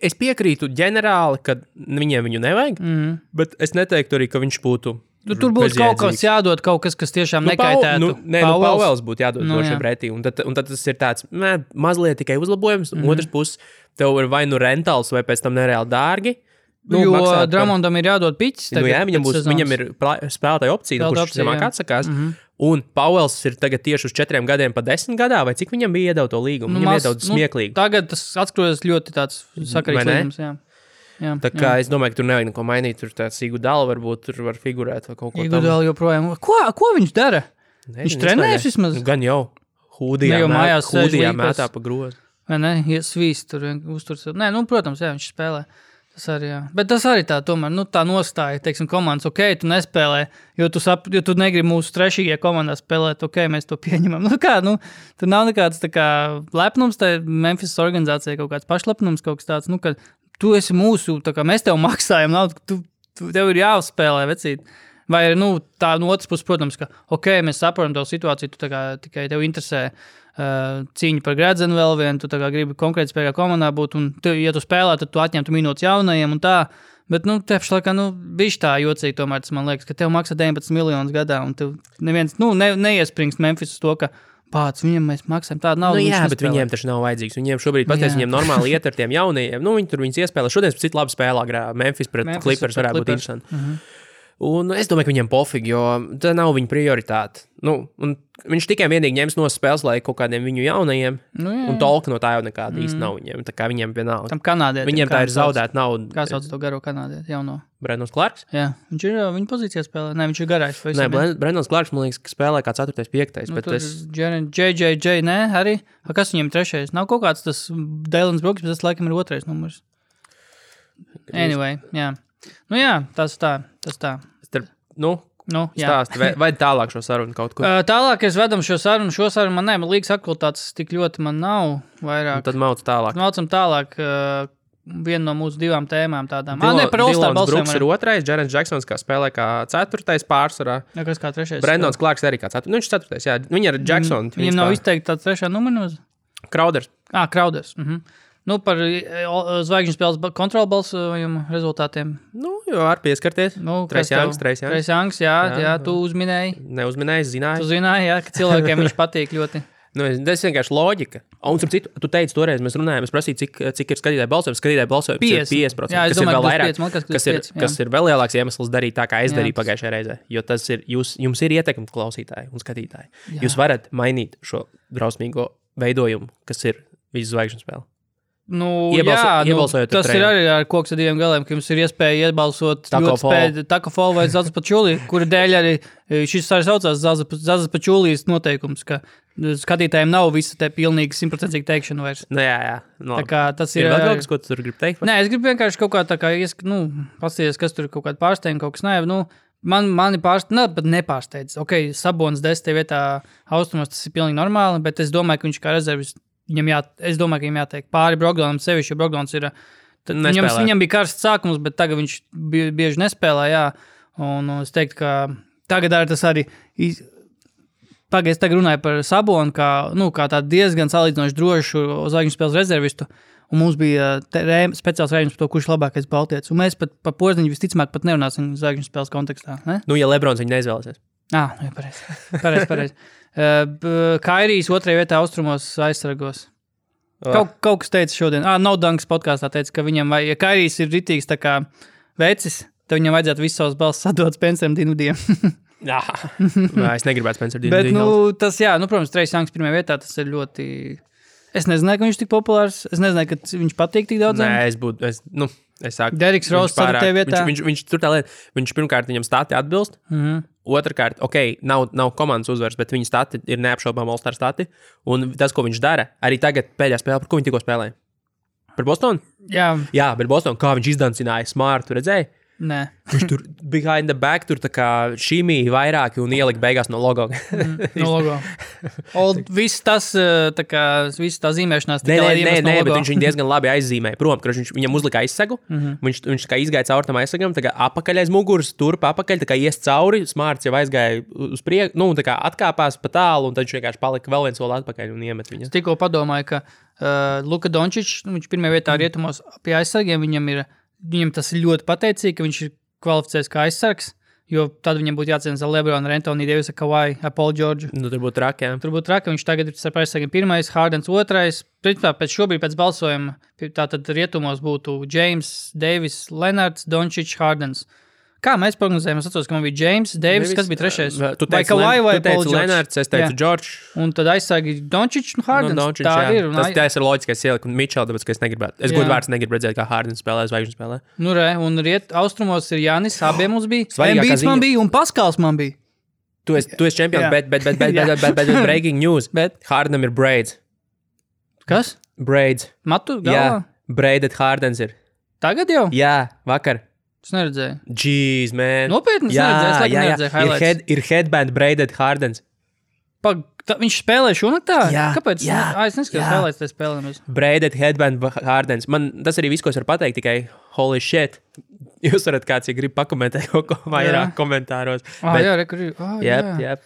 Es piekrītu ģenerāli, ka viņu nevajag, bet es neteiktu arī, ka viņš būtu tur būs kaut kas jādod, kaut kas tiešām nekaitētu. Pauels būtu jādod šiem pretī. Un tad tas ir tāds mazliet tikai uzlabojums. Otrs puses, tev ir vai rentāls, vai pēc tam nereāli dārgi. Jo Dramondam ir jādod piķis. Viņam ir spēlētāja opcija, kurš zemāk atsakās. Un Pauels ir tagad tieši uz 4 gadiem pa 10 gadā, vai cik viņam bija iedod to līgumu? Viņam iedod smieklīgi. Tagad tas atskrojas ļoti tāds sakarīgs līgums, jā. Tā kā es domāju, ka tur nevajag neko mainīt. Tur tāds Iguodala varbūt tur var figurēt vai kaut ko Iguodala joprojām. Ko viņš dara? Viņš trenējas vismaz? Gan jau. Hūdijā mētā pa grozu. Vai ne? Svīst tur uzturs. Nē, protams, jā, viņš spēlē. Tas arī, jā. Bet tas arī tā tomēr, tā nostāja, teiksim, komandas, tu nespēlē, jo tu negribi mūsu trešīgajā komandā spēlēt, mēs to pieņemam. Tur nav nekāds tā kā lepnums, tā Memphis organizācija kaut kāds pašlepnums, kaut kas tāds, ka tu esi mūsu, tā kā mēs tev maksājam, tev ir jāuzspēlē, vecīt. Vai tā no otras puses, protams, ka, mēs saprotam to situāciju, tu tā kā tikai tev interesē cīņa par gredzenu vēl vienu, tu tā kā gribi konkrēti spēlē komandā būt, un ja tu spēlē, tad tu atņemtu minūtes jaunajiem un tā, bet, tepši laikā, bišķi tā jocīgi tomēr, tas man liekas, ka tev maksā 19 miljonus gadā, un tev neviens, neiespringst Memphis uz to, ka pāc, viņam mēs maksājam tādu naudu. Jā, bet viņiem taču nav vajadzīgs. Viņiem šobrīd viņiem normāli iet ar tiem jaunajiem. Viņi tur viņus iespēlē. Šodien pēc citu labu spēlā Memphis pret Clippers varētu būt interesanti. Un es domāju, ka viņiem pofīgi, jo tā nav viņa prioritāte. Un viņš tikai vienīgi ņems no spēles, lai kaut kādiem viņu jaunajiem, un tolka no tā jau nekāda īsti nav viņiem. Tā kā viņiem vienalga. Tam kanādietim. Viņiem tā ir zaudēta nauda. Kā sauc to garo kanādieti jauno? Brendons Clarks? Jā, viņš ir viņa pozīcijā spēlē. Nē, viņš ir garais. Nē, Brendons Clarks, man liekas, ka spēlē kā 4. 5. Bet JJJ, nē, arī. Kas viņiem 3? Nav kaut kāds tas Dēlins Brooks, bet tas laikam ir 2. numurs. Anyway, jā. Tas tā. Stāsti, vai tālāk šo sarunu kaut kur? Tālāk es vedam šo sarunu man liekas aktualitātes tik ļoti man nav vairāk. Un tad Maucam tālāk vienu no mūsu 2 tēmām tādām. Dylans Brooks ir 2, Jaren Jacksons kā spēlē kā 4. pārsvarā. Jā, kas kā 3. Brendons Clarks arī kā 4. Viņš ir 4. Jā, viņi ar Jacksonu. Viņam nav izteikti tāds 3. numurs? Crowders. Crowders. Par zvaigžņu spēles kontrolu balsojumu rezultātiem. Jo var pieskarties. Trace Youngs, jā, tu uzminēji. Neuzminēji, zināji. Tu zināji, jā, ka cilvēkiem viņš patīk ļoti. Tas vienkārši loģika. Un, starp citu, tu teici toreiz, mēs runājām, es prasīju, cik ir skatītāju balsojums. Skatītāju balsojums ir 50%, jā, kas ir vēl vairāk, 5, kas ir vēl lielāks iemesls darīt tā, kā es darīju pagājušajā reizē. Jo tas ir, jums ir ietekme klausītāji un skatītāji. Jā. Jūs varat mainīt šo drausmīgo veidojumu, kas ir visu zvaigžņu spēle. Tas ir arī ar koks ar 2 galiem, ka jums ir iespēja iebalsot Taco Fall vai Zaza Pačulī, kura dēļ arī šis arī saucās Zaza Pačulīs noteikums, ka skatītājiem nav visa te pilnīgi 100% teikšana vairs. Jā. Tā kā tas ir vēl kaut kas, ko tu tur gribi teikt? Nē, es gribu vienkārši kaut kā tā kā, pasties, kas tur kaut kāda pārsteiguma, kaut kas nē, mani nepārsteidz. Sabonis 10. vietā austrumos, tas ir pilnīgi normāli, bet es domāju, ka viņš kā rezervis es domāju, ka viņam jāteikt pāri Brogdonam sevišķi, jo Brogdons ir... Viņam bija karsts sākums, bet tagad viņš bieži nespēlē, jā. Un es teiktu, ka tagad arī tas arī... Es tagad runāju par Sabonu, kā tādu diezgan salīdzinoši drošu zvaigžņu spēles rezervistu. Un mums bija speciāls rēģins par to, kurš labākais baltietis. Un mēs pat par Porziņu visticamāk pat nerunāsim zvaigžņu spēles kontekstā. Ne? Ja Lebrons viņu neizvēlēsies. Pareizi. Kairijs 2. vietā austrumos aizsargos. Kaut kas teica šodien. No Dunks podkāstā teica, ka viņam ja Kairijs ir ritīgs tā kā vecis, tad viņam vajadzētu visu savas balss sadot Spenceram Dinvidijam. Jā, es negribētu Spenceru Dinvidiju. Bet, tas, protams, Trace Youngs 1. vietā, tas ir ļoti... Es nezināju, ka viņš tik populārs. Es nezināju, ka viņš patīk tik daudz. Nē, es saku. Deriks Ross ir tev vietā. Viņš tur tā lieta, viņš pirmkārt viņam stati atbilst. Otrkārt, nav komandas uzvaras, bet viņa stati ir neapšaubām All-Star stati. Un tas, ko viņš dara, arī tagad pēdējā spēlē, par ko viņš tikko spēlēja? Par Bostonu? Jā, par Bostonu. Kā viņš izdancināja Smartu, redzēji? Nē. Viņš tur behind the back, tur tā kā šīmī vairāki un ielika beigās no logo. No logo. Viss tas, tā kā, viss tā zīmēšanās. Nē, bet viņš viņu diezgan labi aizzīmēja. Prom, ka viņam uzlika aizsegu, viņš tā kā izgāja caur tam aizsegam, tā kā apakaļ aiz muguras, turp apakaļ, tā kā ies cauri, Smarts jau aizgāja uz priekšu, tā kā atkāpās pa tālu, un tad viņš vienkārši palika vēl viens soli atpakaļ un iemet viņu. Es tikko padomāju, ka Luka Dončičs, viņš pirmajā vietā rietumos pie aizsargiem, viņam tas ir ļoti pateicīgi, ka viņš ir kvalificēts kā aizsargs, jo tad viņam būtu jācīnās ar LeBronu, ar Anthony Davisa, Kawhi, ar Paul George. Tur būtu traki, jā. Tur būtu traki, viņš tagad ir starp aizsargiem pirmais, Hardens otrais. Pēc balsojuma, tātad rietumos būtu James, Davis, Leonards, Dončičs, Hardens. Kā mēs prognozējām? Es atceros, ka man bija James, Davis, kas bija trešais? Vai Kawhi vai Paul George? Leonards, es teicu George. Un tad aizsargi Dončičs un Hardens. Tā ir. Tas ir loģiskais ielikt un Mitchell, tāpēc, ka es negribētu. Es godu vārds negribu redzēt, kā Hardens spēlē, zvaigžņu spēlē. Un austrumos ir Jānis, abiem mums bija. Embiids man bija un Paskals man bija. Tu esi čempions, bet breaking news. Hardenam ir braids. Kas? Braids. Matu galvā? Braided Hardens ir. Tagad jau? Jā, vakar. Es neredzēju. Jeez, man. Nopietni, es neredzēju highlights. Ir headband braided Hardens. Viņš spēlē šonaktā? Jā. Kāpēc? Es neskatās highlights tajā spēlēm. Braided headband Hardens. Man tas arī viss, ko es varu pateikt, tikai holy shit. Jūs varat kāds, ja grib pakomentēt kaut ko vairāk komentāros. Jā.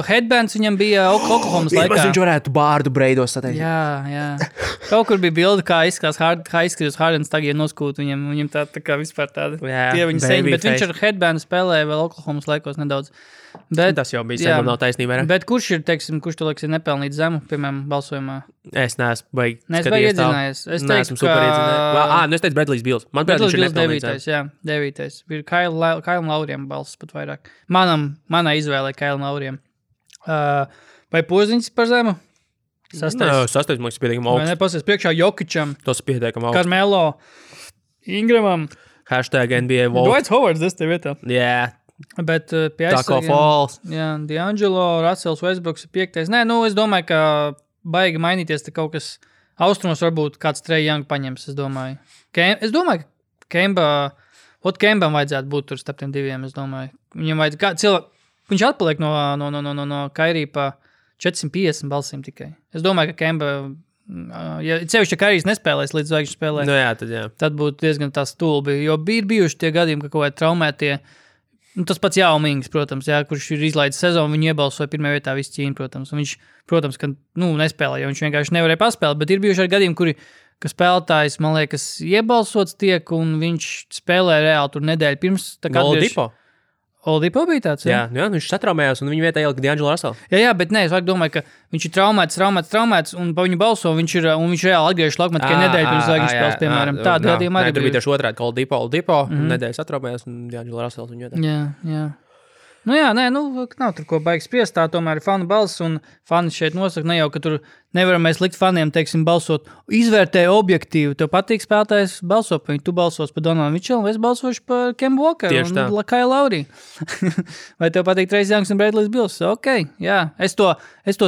Headbands viņam bija Oklahomas laikā. Viņš varētu bārdu breidos sateikt. Jā. Kaut kur bija bilde, kā izskatās Hardens tagad noskūt viņam tā kā vispār tāda. Tie viņa seņi, bet viņš ar headbandu spēlēja vēl Oklahomas laikos nedaudz. Tas jau bija sen, nav taisnība. Bet kurš tu liekas ir nepelnīt zemu, piemēram, balsojumā? Es neesmu baigi iedzinājis. Es neesmu super iedzinājis. Es teicu Bradley's Bills. Man Bradley's Bills 9. Ir Kailam Lauriem balss pat vairāk. Manā izvēlē Kailam Lauriem. Vai Poziņš par zemu? Sastais, man liekas, pietiekam augsts. Vai nepasies priekšā Jokičam? Tas pietiekam augsts. Carmelo, Ingramam. #NBA vote. Dwight Howards, es tev vietā. Jā. Bet pie Taco Falls. Jā, D'Angelo, Russells, Westbrooks ir 5. Nē, es domāju, ka baigi mainīties te kaut kas austrumos varbūt kāds Trae Young paņems, es domāju. Es domāju, ka Kembam vajadzētu būt tur starp tiem diviem, es domāju. Viņam vajadzētu viņš atpaliek no Kairī pa 450 balsīm tikai. Es domāju, ka Kemba, ja cevišķi Kairīs nespēlēs līdz zvaigžņu spēlē, tad būtu diezgan tā stulbi, jo bija bijuši tie gadījumi, ka kaut kādi traumētie. Tas pats Jaumings, protams, kurš ir izlaidis sezonu, viņu iebalsoja pirmajā vietā visu Ķīnu, protams. Un viņš, protams, ka nespēlē, jo viņš vienkārši nevarēja paspēlēt, bet ir bijuši arī gadījumi, ka spēlētājs, man liekas, iebalsots tiek, un viņš spēlē reāli tur nedēļu pirms. Oladipo bija tāds, jā, viņš satraumējās, un viņa vietā ielika D'Angelo Russell. Jā, bet nē, es domāju, ka viņš ir traumēts, un pa viņu balso, viņš reāli atgriežas laukumā tikai nedēļu pirms zvaigžņu spēles, piemēram. Tāda gadījuma arī bija. Tur bija tieši otrādi, ka Oladipo, nedēļu satraumējās, un D'Angelo Russell viņa vietā. Jā. Nav tur ko baigi spriest, tā tomēr ir fanu balss, un fani šeit nosaka, ne jau, ka tur nevaram mēs likt faniem, teiksim, balsot, izvērtē objektīvi, tev patīk spēlētājs balso par viņu, tu balsos par Donaldu Mitchellu, es balsošu par Kemba Walkeru un Kailu Lauriju. Vai tev patīk Trae Youngs un Bradley's Bills? Ok, jā, es to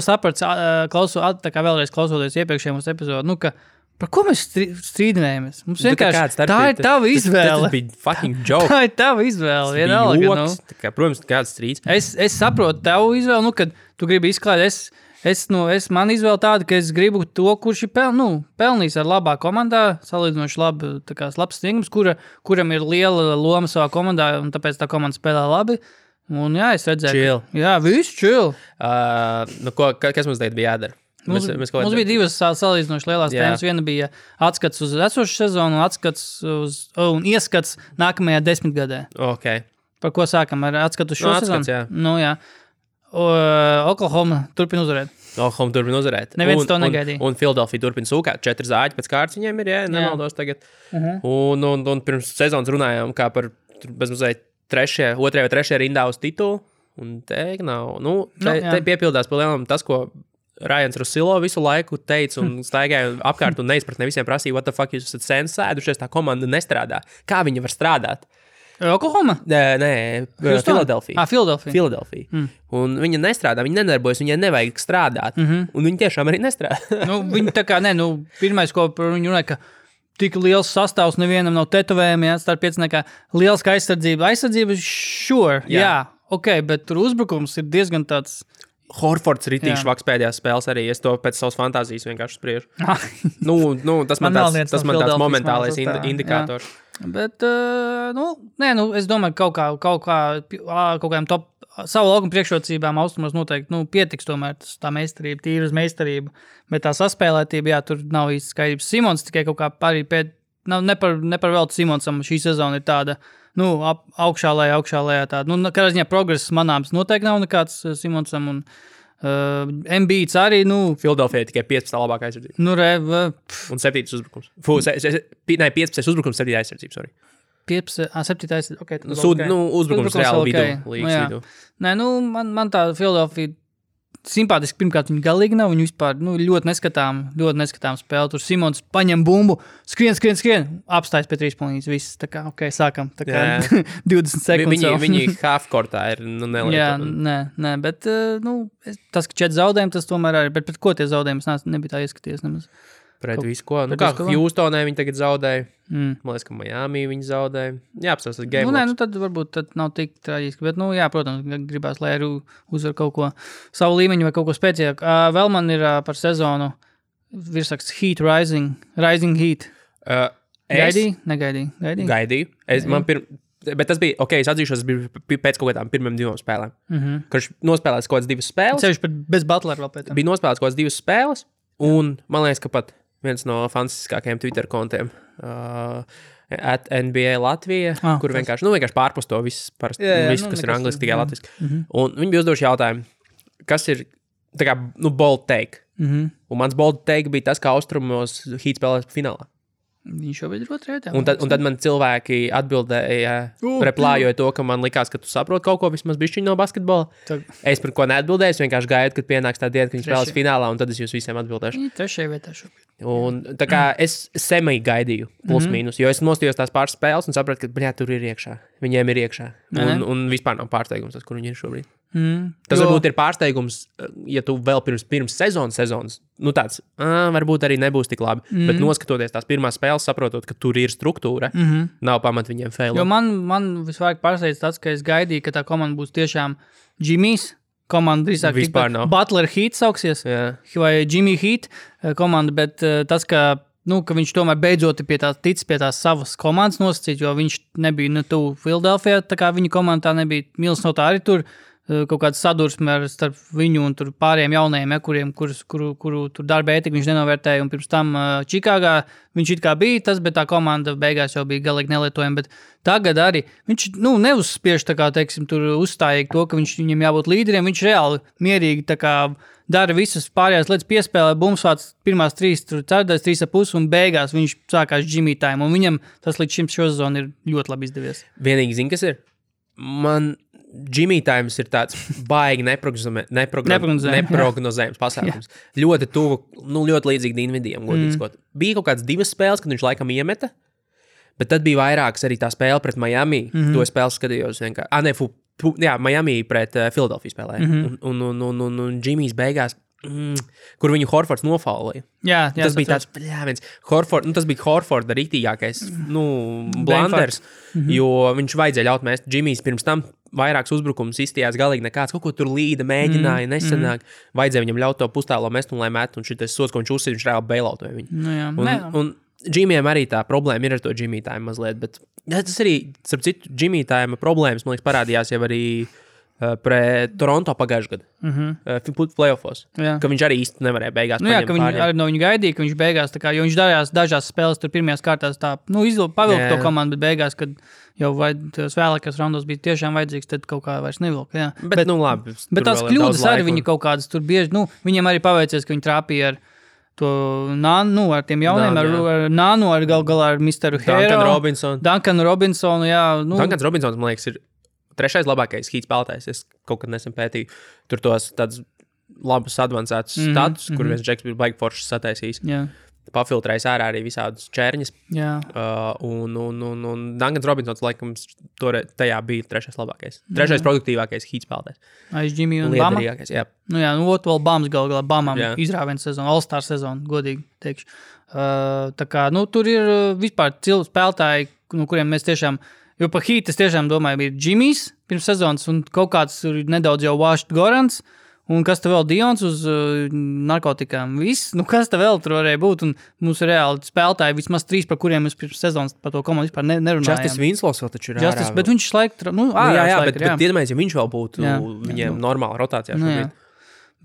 sapratu, tā kā vēlreiz klausoties iepriekšējiem mūsu epizodu, ka par ko mēs strīdinājamies? Mums vienkārši tā ir tava izvēle. Tas bija fucking joke. Tā ir tava izvēle. Vienalga. Protams, kāds strīds. Es saprotu tavu izvēli, kad tu gribi izklāt. Man izvēle tāda, ka es gribu to, kurš ir pelnījis ar labā komandā, salīdzinoši labs sniegums, kuram ir liela loma savā komandā, un tāpēc tā komanda spēlē labi. Un jā, es redzēju. Chill. Jā, viss chill. Kas mums tagad bija jādara? Mums bija divas salīdzinoši lielās tēmas. Viena bija atskats uz esošu sezonu un ieskats nākamajā 10 gadē. Okay. Par ko sākam? Ar atskatu uz šo sezonu? Jā. Oklahoma turpina uzvarēt. Neviens to negaidīja. Un Philadelphia turpina sūkāt. 4 zāģi pēc kārtas viņiem ir, nemaldos tagad. Un pirms sezonas runājām kā par bezmazliet 2. vai 3. rindā uz titulu. Un te nav. Te piepildās pa lielam tas, ko Ryans Russillo visu laiku teica un staigāja apkārt un neizpratnē visiem prasīja, what the fuck jūs esat sen sēdušies, tā komanda nestrādā. Kā viņa var strādāt? Oklahoma? Nē, Philadelphia. Philadelphia. Un viņa nestrādā, viņa nedarbojas, viņai nevajag strādāt. Un viņa tiešām arī nestrādā. Viņa tā kā, pirmais, ko par viņu runāja, ka tik liels sastāvs nevienam nav tetovējumi, starp pieciniekā liels kā aizsardzība. Aizsardzība, sure, jā, ok, bet tur uzbrukums ir diezgan tāds... Horfords ritīgi švaks pēdējās spēles arī, es to pēc savas fantāzijas vienkārši spriežu. Tas man tāds momentālais indikators. Jā. Bet, es domāju, kaut kādiem top savu laukumu priekšrocībām austrumos noteikti, pietiks tomēr tā meistarība, tīras meistarība, bet tā saspēlētība, jā, tur nav īsti skaidrības. Simons tikai kaut kā arī ne par veltu Simonsam šī sezona ir tāda, augšā lejā tāda. Kādā ziņā progress manāms noteikti nav nekāds Simonsam un Embiids arī, Philadelphia tikai 15. labākā aizsardzība. Un 7. uzbrukums. 15. uzbrukums, 7. aizsardzība, sorry. 7. aizsardzība, ok. Uzbrukums reāli līgas vidū. Nē, man tā Philadelphia simpātiski, pirmkārt, viņi galīgi nav, viņi vispār ļoti neskatām spēli. Tur Simons paņem bumbu, skrien, apstājas pie 3 punktīs, viss, tā kā, ok, sākam, tā kā 20 sekundes. Viņi half-courtā ir, neliek. Jā, nē, bet, tas, ka 4 zaudējumi, tas tomēr arī, bet pret ko tie zaudējumi, es nebija tā ieskaties nemaz. Pret visu ko. Kā Houstonē viņi tagad zaudēja. Man liekas, ka Miami viņi zaudēja. Jā, apstāstas game loss. Tad varbūt nav tik traģiski, bet, protams, gribās, lai arī uzvar kaut ko savu līmeņu vai kaut ko spēcīgāk. Vēl man ir par sezonu virsraksts Heat Rising Heat. Negaidīju. Gaidīju. Bet tas bija, ok, es atzīšos, tas bija pēc kaut kādām pirmiem 2 spēlēm. Kad nospēlēs kaut kādas 2 spēles. Ceļš bez Butlera vēl pēc tam. Bija nospēlēts kaut kādas 2 spēles, un man liekas, ka pat viens no fantastiskākajiem Twitter kontiem @NBA Latvija, kur vienkārši pārpus to viss, kas ir angliski, tikai latviski. Un viņi bija uzdevuši jautājumu, kas ir tā kā, bold take. Un mans bold take bija tas, kā austrumos Heat spēlēs finālā. Viņš jau bija otrajā. Un tad man cilvēki atbildēja, replājot to, ka man likās, ka tu saproti kaut ko vismaz bišķiņ no basketbola. Es par ko neatbildēju, es vienkārši gaidu, kad pienāks tā diena, kad viņi spēlēs finālā, un tad es jūs visiem atbildēšu. Trešajā vietā šobrīd. Un tā kā es semī gaidīju, plus mīnus, jo es nostījos tās pāris spēles un sapratu, ka, tur ir iekšā. Viņiem ir iekšā. Un vispār nav pārsteigums tas, kur viņi ir šobrīd. Tas varbūt ir pārsteigums, ja tu vēl pirms sezonas, tāds, varbūt arī nebūs tik labi, bet noskatoties tās pirmās spēles, saprotot, ka tur ir struktūra, nav pamat viņiem failot. Jo man visvairāk pārsteidz tas, ka es gaidīju, ka tā komanda būs tiešām Jimmy's komanda, drīzāk Butler Heat sauksies, vai Jimmy Heat komanda, bet tas, ka viņš tomēr beidzot tic pie tās savas komandas nosacīt, jo viņš nebija tuvu Philadelphia, tā kā viņa komanda tā nebija, Minnesota arī tur kaut kāda sadursme starp viņu un tur pārējiem jaunajiem, kuru tur darba ētika viņš nenovērtēja, un pirms tam Čikāgā viņš it kā bija tas, bet tā komanda beigās jau bija galīgi nelietojama, bet tagad arī viņš, neuzspiež tā kā, teiksim, tur uzstājīgi to, ka viņam jābūt līderiem, viņš reāli mierīgi tā kā dara visas pārējās lietas, piespēlē, bumsvāts pirmās 3, tur cerdais 3,5 un beigās viņš sākās Jimmy time, un viņam tas līdz šim šo sezonu ir ļoti labi izdevies. Vienīgi zini, kas ir? Man Jimmy times ir tāds baigi neprognozējums pasākums. Ļoti tuvu, ļoti līdzīgi Dinvidijam, godīgi sakot. Bija kaut kādas 2 spēles, kad viņš laikam iemeta, bet tad bija vairākas arī tā spēle pret Miami. To spēli skatījos vienkārši. Miami pret Philadelphia spēlēja. Un Jimmy's beigās, kur viņu Horfords nofaulēja. Tas bija tāds, tas bija Horforda rītīgākais, blunders, jo viņš vajadzēja ļaut mest. Jimmy's pirms tam vairāks uzbrukums izstījās galīgi nekāds, kaut ko tur līda, mēģināja, nesanāk. Vajadzēja viņam ļaut to pustālo mest un lai met, un šitais sots, ko viņš uzsīd, viņš reāli bailautoja viņu. Un Jimmy'am arī tā problēma ir ar to Jimmy time mazliet, bet tas arī, starp citu, Jimmy time problēmas, man liekas, parādījās jau arī pret Toronto pagājušajā gadā, playoffos, ka viņš arī īsti nevarēja beigās ka viņi arī no viņu gaidīja, ka viņš beigās, tā kā, jo viņš darījās dažās spēles tur pirmajās kārtās tā, pavilka to komandu, bet beigās, kad jau vēlākās raundos bija tiešām vajadzīgs, tad kaut kā vairs nevilka, Bet labi. Bet tās kļūdas arī viņi kaut kādas tur bieži, viņiem arī paveicies, ka viņi trāpīja ar to Nānu, ar tiem jauniem, ar Nānu, ar galā ar Misteru Hero. Duncan Robinsonu, Duncans Robinsons, man liekas, ir 3. labākais Heat spēlētājs, es kaut kad nesen pētīju. Tur tos tāds labus advancētus status, kur viens džeks bija baigi foršs sataisījis. Pafiltrējis ārā arī visādus čērņus. Un Duncans Robinsons, laikam, tajā bija trešais labākais. Trešais produktīvākais hītspēlētājs. Aiz Jimmy un Bama? Vēl Bams galā Bamam izrāviens sezonu, All-Star sezonu, godīgi teikšu. Tā kā, tur ir vispār spēlētāji, kuriem mēs tiešām, jo pa Heat es tiešām domāju, bija Jimmys pirms sezonas un kaut kāds nedaudz jau Washington Gorans. Un kas te vēl Dions uz narkotikām? Viss, kas te vēl tur varēja būt? Un mums ir reāli spēlētāji, vismaz 3, par kuriem mēs pirms sezonas par to komandu vispār nerunājām. Justice Winslows vēl taču ir ārā. Bet viņš šlaik, bet iedomājies, ja viņš vēl būtu viņiem normāla rotācijā šobrīd.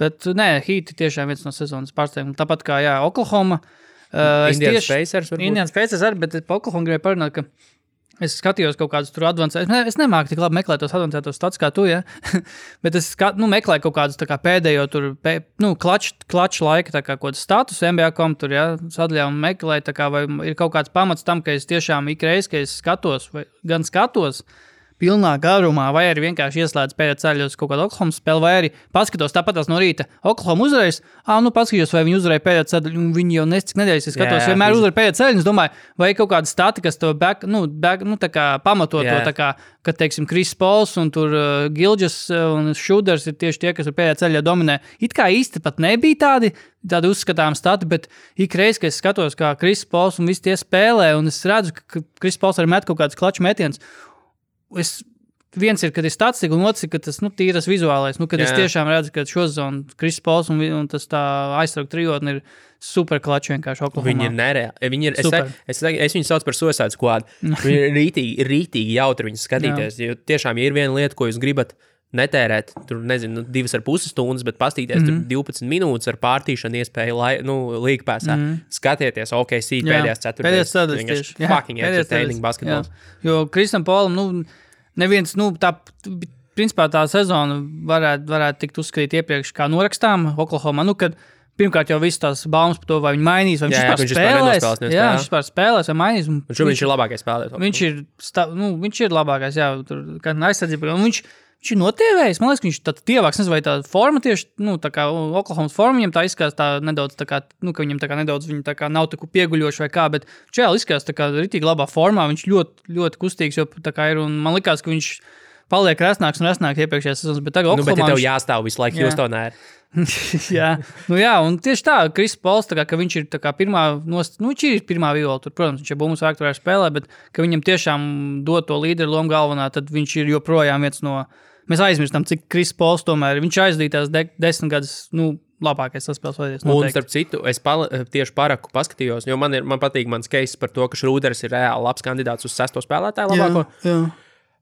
Bet Heat tiešām viens no sezonas pārsteigumiem. Tāpat kā, Oklahoma. Indians Pacers varbūt. Indians Pacers arī, bet pa Oklahoma gribēju parunāt, ka es skatījos kaut kādus tur advancētus. Es nemāku tik labi meklēt tos advancētos stats kā tu, bet es meklēju kaut kādus tā kā pēdējo tur, klaču laika tā kā kaut status NBA.com tur, sadaļā un meklēju tā kā, vai ir kaut kāds pamats tam, ka es tiešām ikreiz, ka es skatos, vai gan skatos pilnā garumā, vai arī vienkārši ieslēdz pēdējā ceļā uz kaut kādu Oklahoma spēli, vai arī paskatos tāpatās no rīta. Oklahoma uzvarēs, paskatos, vai viņi uzvarēja pēdējā ceļā, un viņi jau nescik nedēļas, es skatos, vienmēr uzvarēja pēdējā ceļā, un es domāju, vai kaut kāda stati, kas to tā kā pamato to, tā kā, kad, teiksim, Chris Pauls un tur Gilgeous un Šuders ir tieši tie, kas ir pēdējā ceļā dominē. It kā īsti pat nebija tādi uzskatām stati, bet ikreiz, kad es skatos, kā Chris Pauls un visi tie spēlē, un es redzu, ka Chris Pauls arī met kaut kāds klaču metiens. Viens ir, kad ir statistika, un otrs ir, ka tas tīras vizuālais. Kad es tiešām redzu, ka šo zonu Chris Pauls un tas tā aizsargu trijotni ir super klači vienkārši Oklahomā. Viņi ir nereāli. Viņi ir, es viņu sauc par Suicide Squad. Viņi ir rītīgi jautri viņus skatīties. Jo tiešām, ja ir viena lieta, ko jūs gribat netērēt, tur, 2,5 stundas, bet pastīties tur 12 minūtes ar pārtīšanu iespēju līgpēsā. Skatieties, OKC pēdējās ceturtdaļas. Vienkārši fucking entertaining basketbols. Jo Kristam Paulam, neviens, principā tā sezona varētu tikt uzskatīt iepriekš kā norakstām Oklahoma, kad pirmkārt jau viss tās baumas par to, vai viņi mainīs, vai viņš spēlēs. Viņš vispār spēlēs vai mainīs. Viņš ir labākais spēlētājs. Viņš ir labākais, tur kā aizsardzība. Viņš ir notievējis, man liekas, ka viņš tad tievāks, nezinu, vai tā forma tieši, tā kā Oklahomas forma, viņam tā izskās tā nedaudz, tā kā, ka viņam tā kā nedaudz, viņa tā kā nav tā pieguļoši vai kā, bet čēl izskās tā kā ritīgi labā formā, viņš ļoti, ļoti kustīgs, jo tā kā ir, un man likās, ka viņš paliek resnāks un resnāks iepriekšējās sezonas, bet tagad Oklahomā... Bet ja tev jāstāv visu laiku Houstonā ir. Un tieši tā, Chris Pauls, tā kā, ka viņš ir tā kā pirmā, viņš ir pirmā viola, tur, protams, viņš ir bumbas vērk, tur arī spēlē, bet ka viņam tiešām dod to līderu lomu galvenā, tad viņš ir joprojām viens no... Mēs aizmirstam, cik Chris Pauls tomēr, viņš aizdītās 10 gadus, labākais saspēles vajadies noteikti. Un starp citu, es tieši paraku paskatījos, jo man patīk mans case par to, ka Šrūders ir reāli labs kandidāts uz 6. spēlētāju labāko. Jā.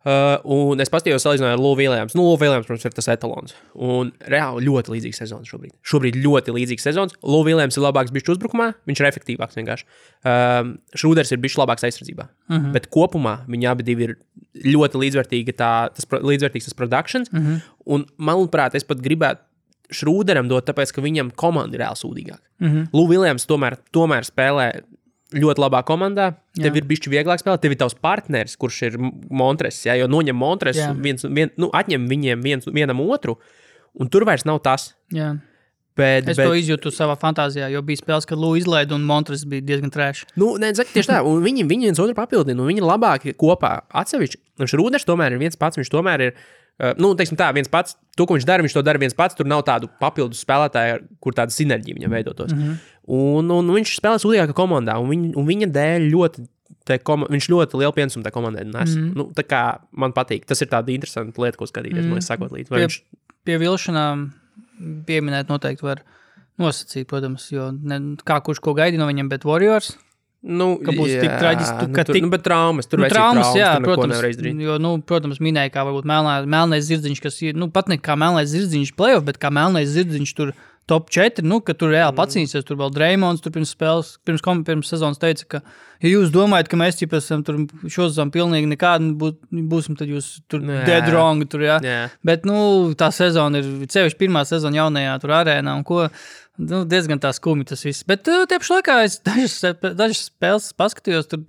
Un es paskatījos salīdzināju ar Lou Williams. Lou Williams, protams, ir tas etalons. Un reāli ļoti līdzīgs sezons šobrīd. Šobrīd ļoti līdzīgs sezons. Lou Williams ir labāks bišķi uzbrukumā, viņš ir efektīvāks vienkārši. Šrūders ir bišķi labāks aizsardzībā. Bet kopumā viņi abi divi ir ļoti līdzvērtīgi līdzvērtīgs tas productions. Un, manuprāt, es pat gribētu Šrūderam dot, tāpēc, ka viņam komanda ir reāli sūdīgāka. Lou Williams tomēr spēlē ļoti labā komandā, tev ir bišķi vieglāk spēlēt, tev ir tavs partneris, kurš ir Montres, jo noņem Montres, atņem viņiem vienam otru, un tur vairs nav tas. Jā. Es to izjūtu savā fantāzijā, jo bija spēles, kad Lou izlaida un Montres bija diezgan trēši. Tieši tā, un viņi viens otru papildina, un viņi ir labāki kopā atsevišķi. Un Šrūders tomēr ir viens pats, viņš tomēr ir, teiksim tā, viens pats, to, ko viņš to dara viens pats, tur nav tādu papildus spēlētāju, kur tāda sinerģija viņam veidotos. Un viņš spēlē sūdīgākā komandā, un viņa dēļ viņš ļoti lielu pienesumu tā komandai nes. Tā kā man patīk, tas ir tāda interesanta lieta, ko skatīties, man sakot līdz. Pie vilšanām pieminēt noteikti var nosacīt, protams, jo kā kurš ko gaidi no viņam, bet Warriors... ka būs tik traģiski, bet traumas, tur traumas, jā, protams, jo, protams, minēja, kā varbūt melnais zirdziņš, kas ir, pat ne kā melnais zirdziņš playoff, bet kā melnais zirdziņš tur top 4, ka tur reāli pacīnīsies, tur vēl Dreymonds, tur pirms sezonas teica, ka, ja jūs domājat, ka mēs esam tur šozam pilnīgi nekādi būsim, tad jūs tur dead wrong, tur, jā. Bet, tā sezona ir, sevišķi pirmā sezona jaunajā tur arēnā, un ko, diezgan tā skumi tas viss. Bet tieši laikā es dažas spēles paskatījos, tur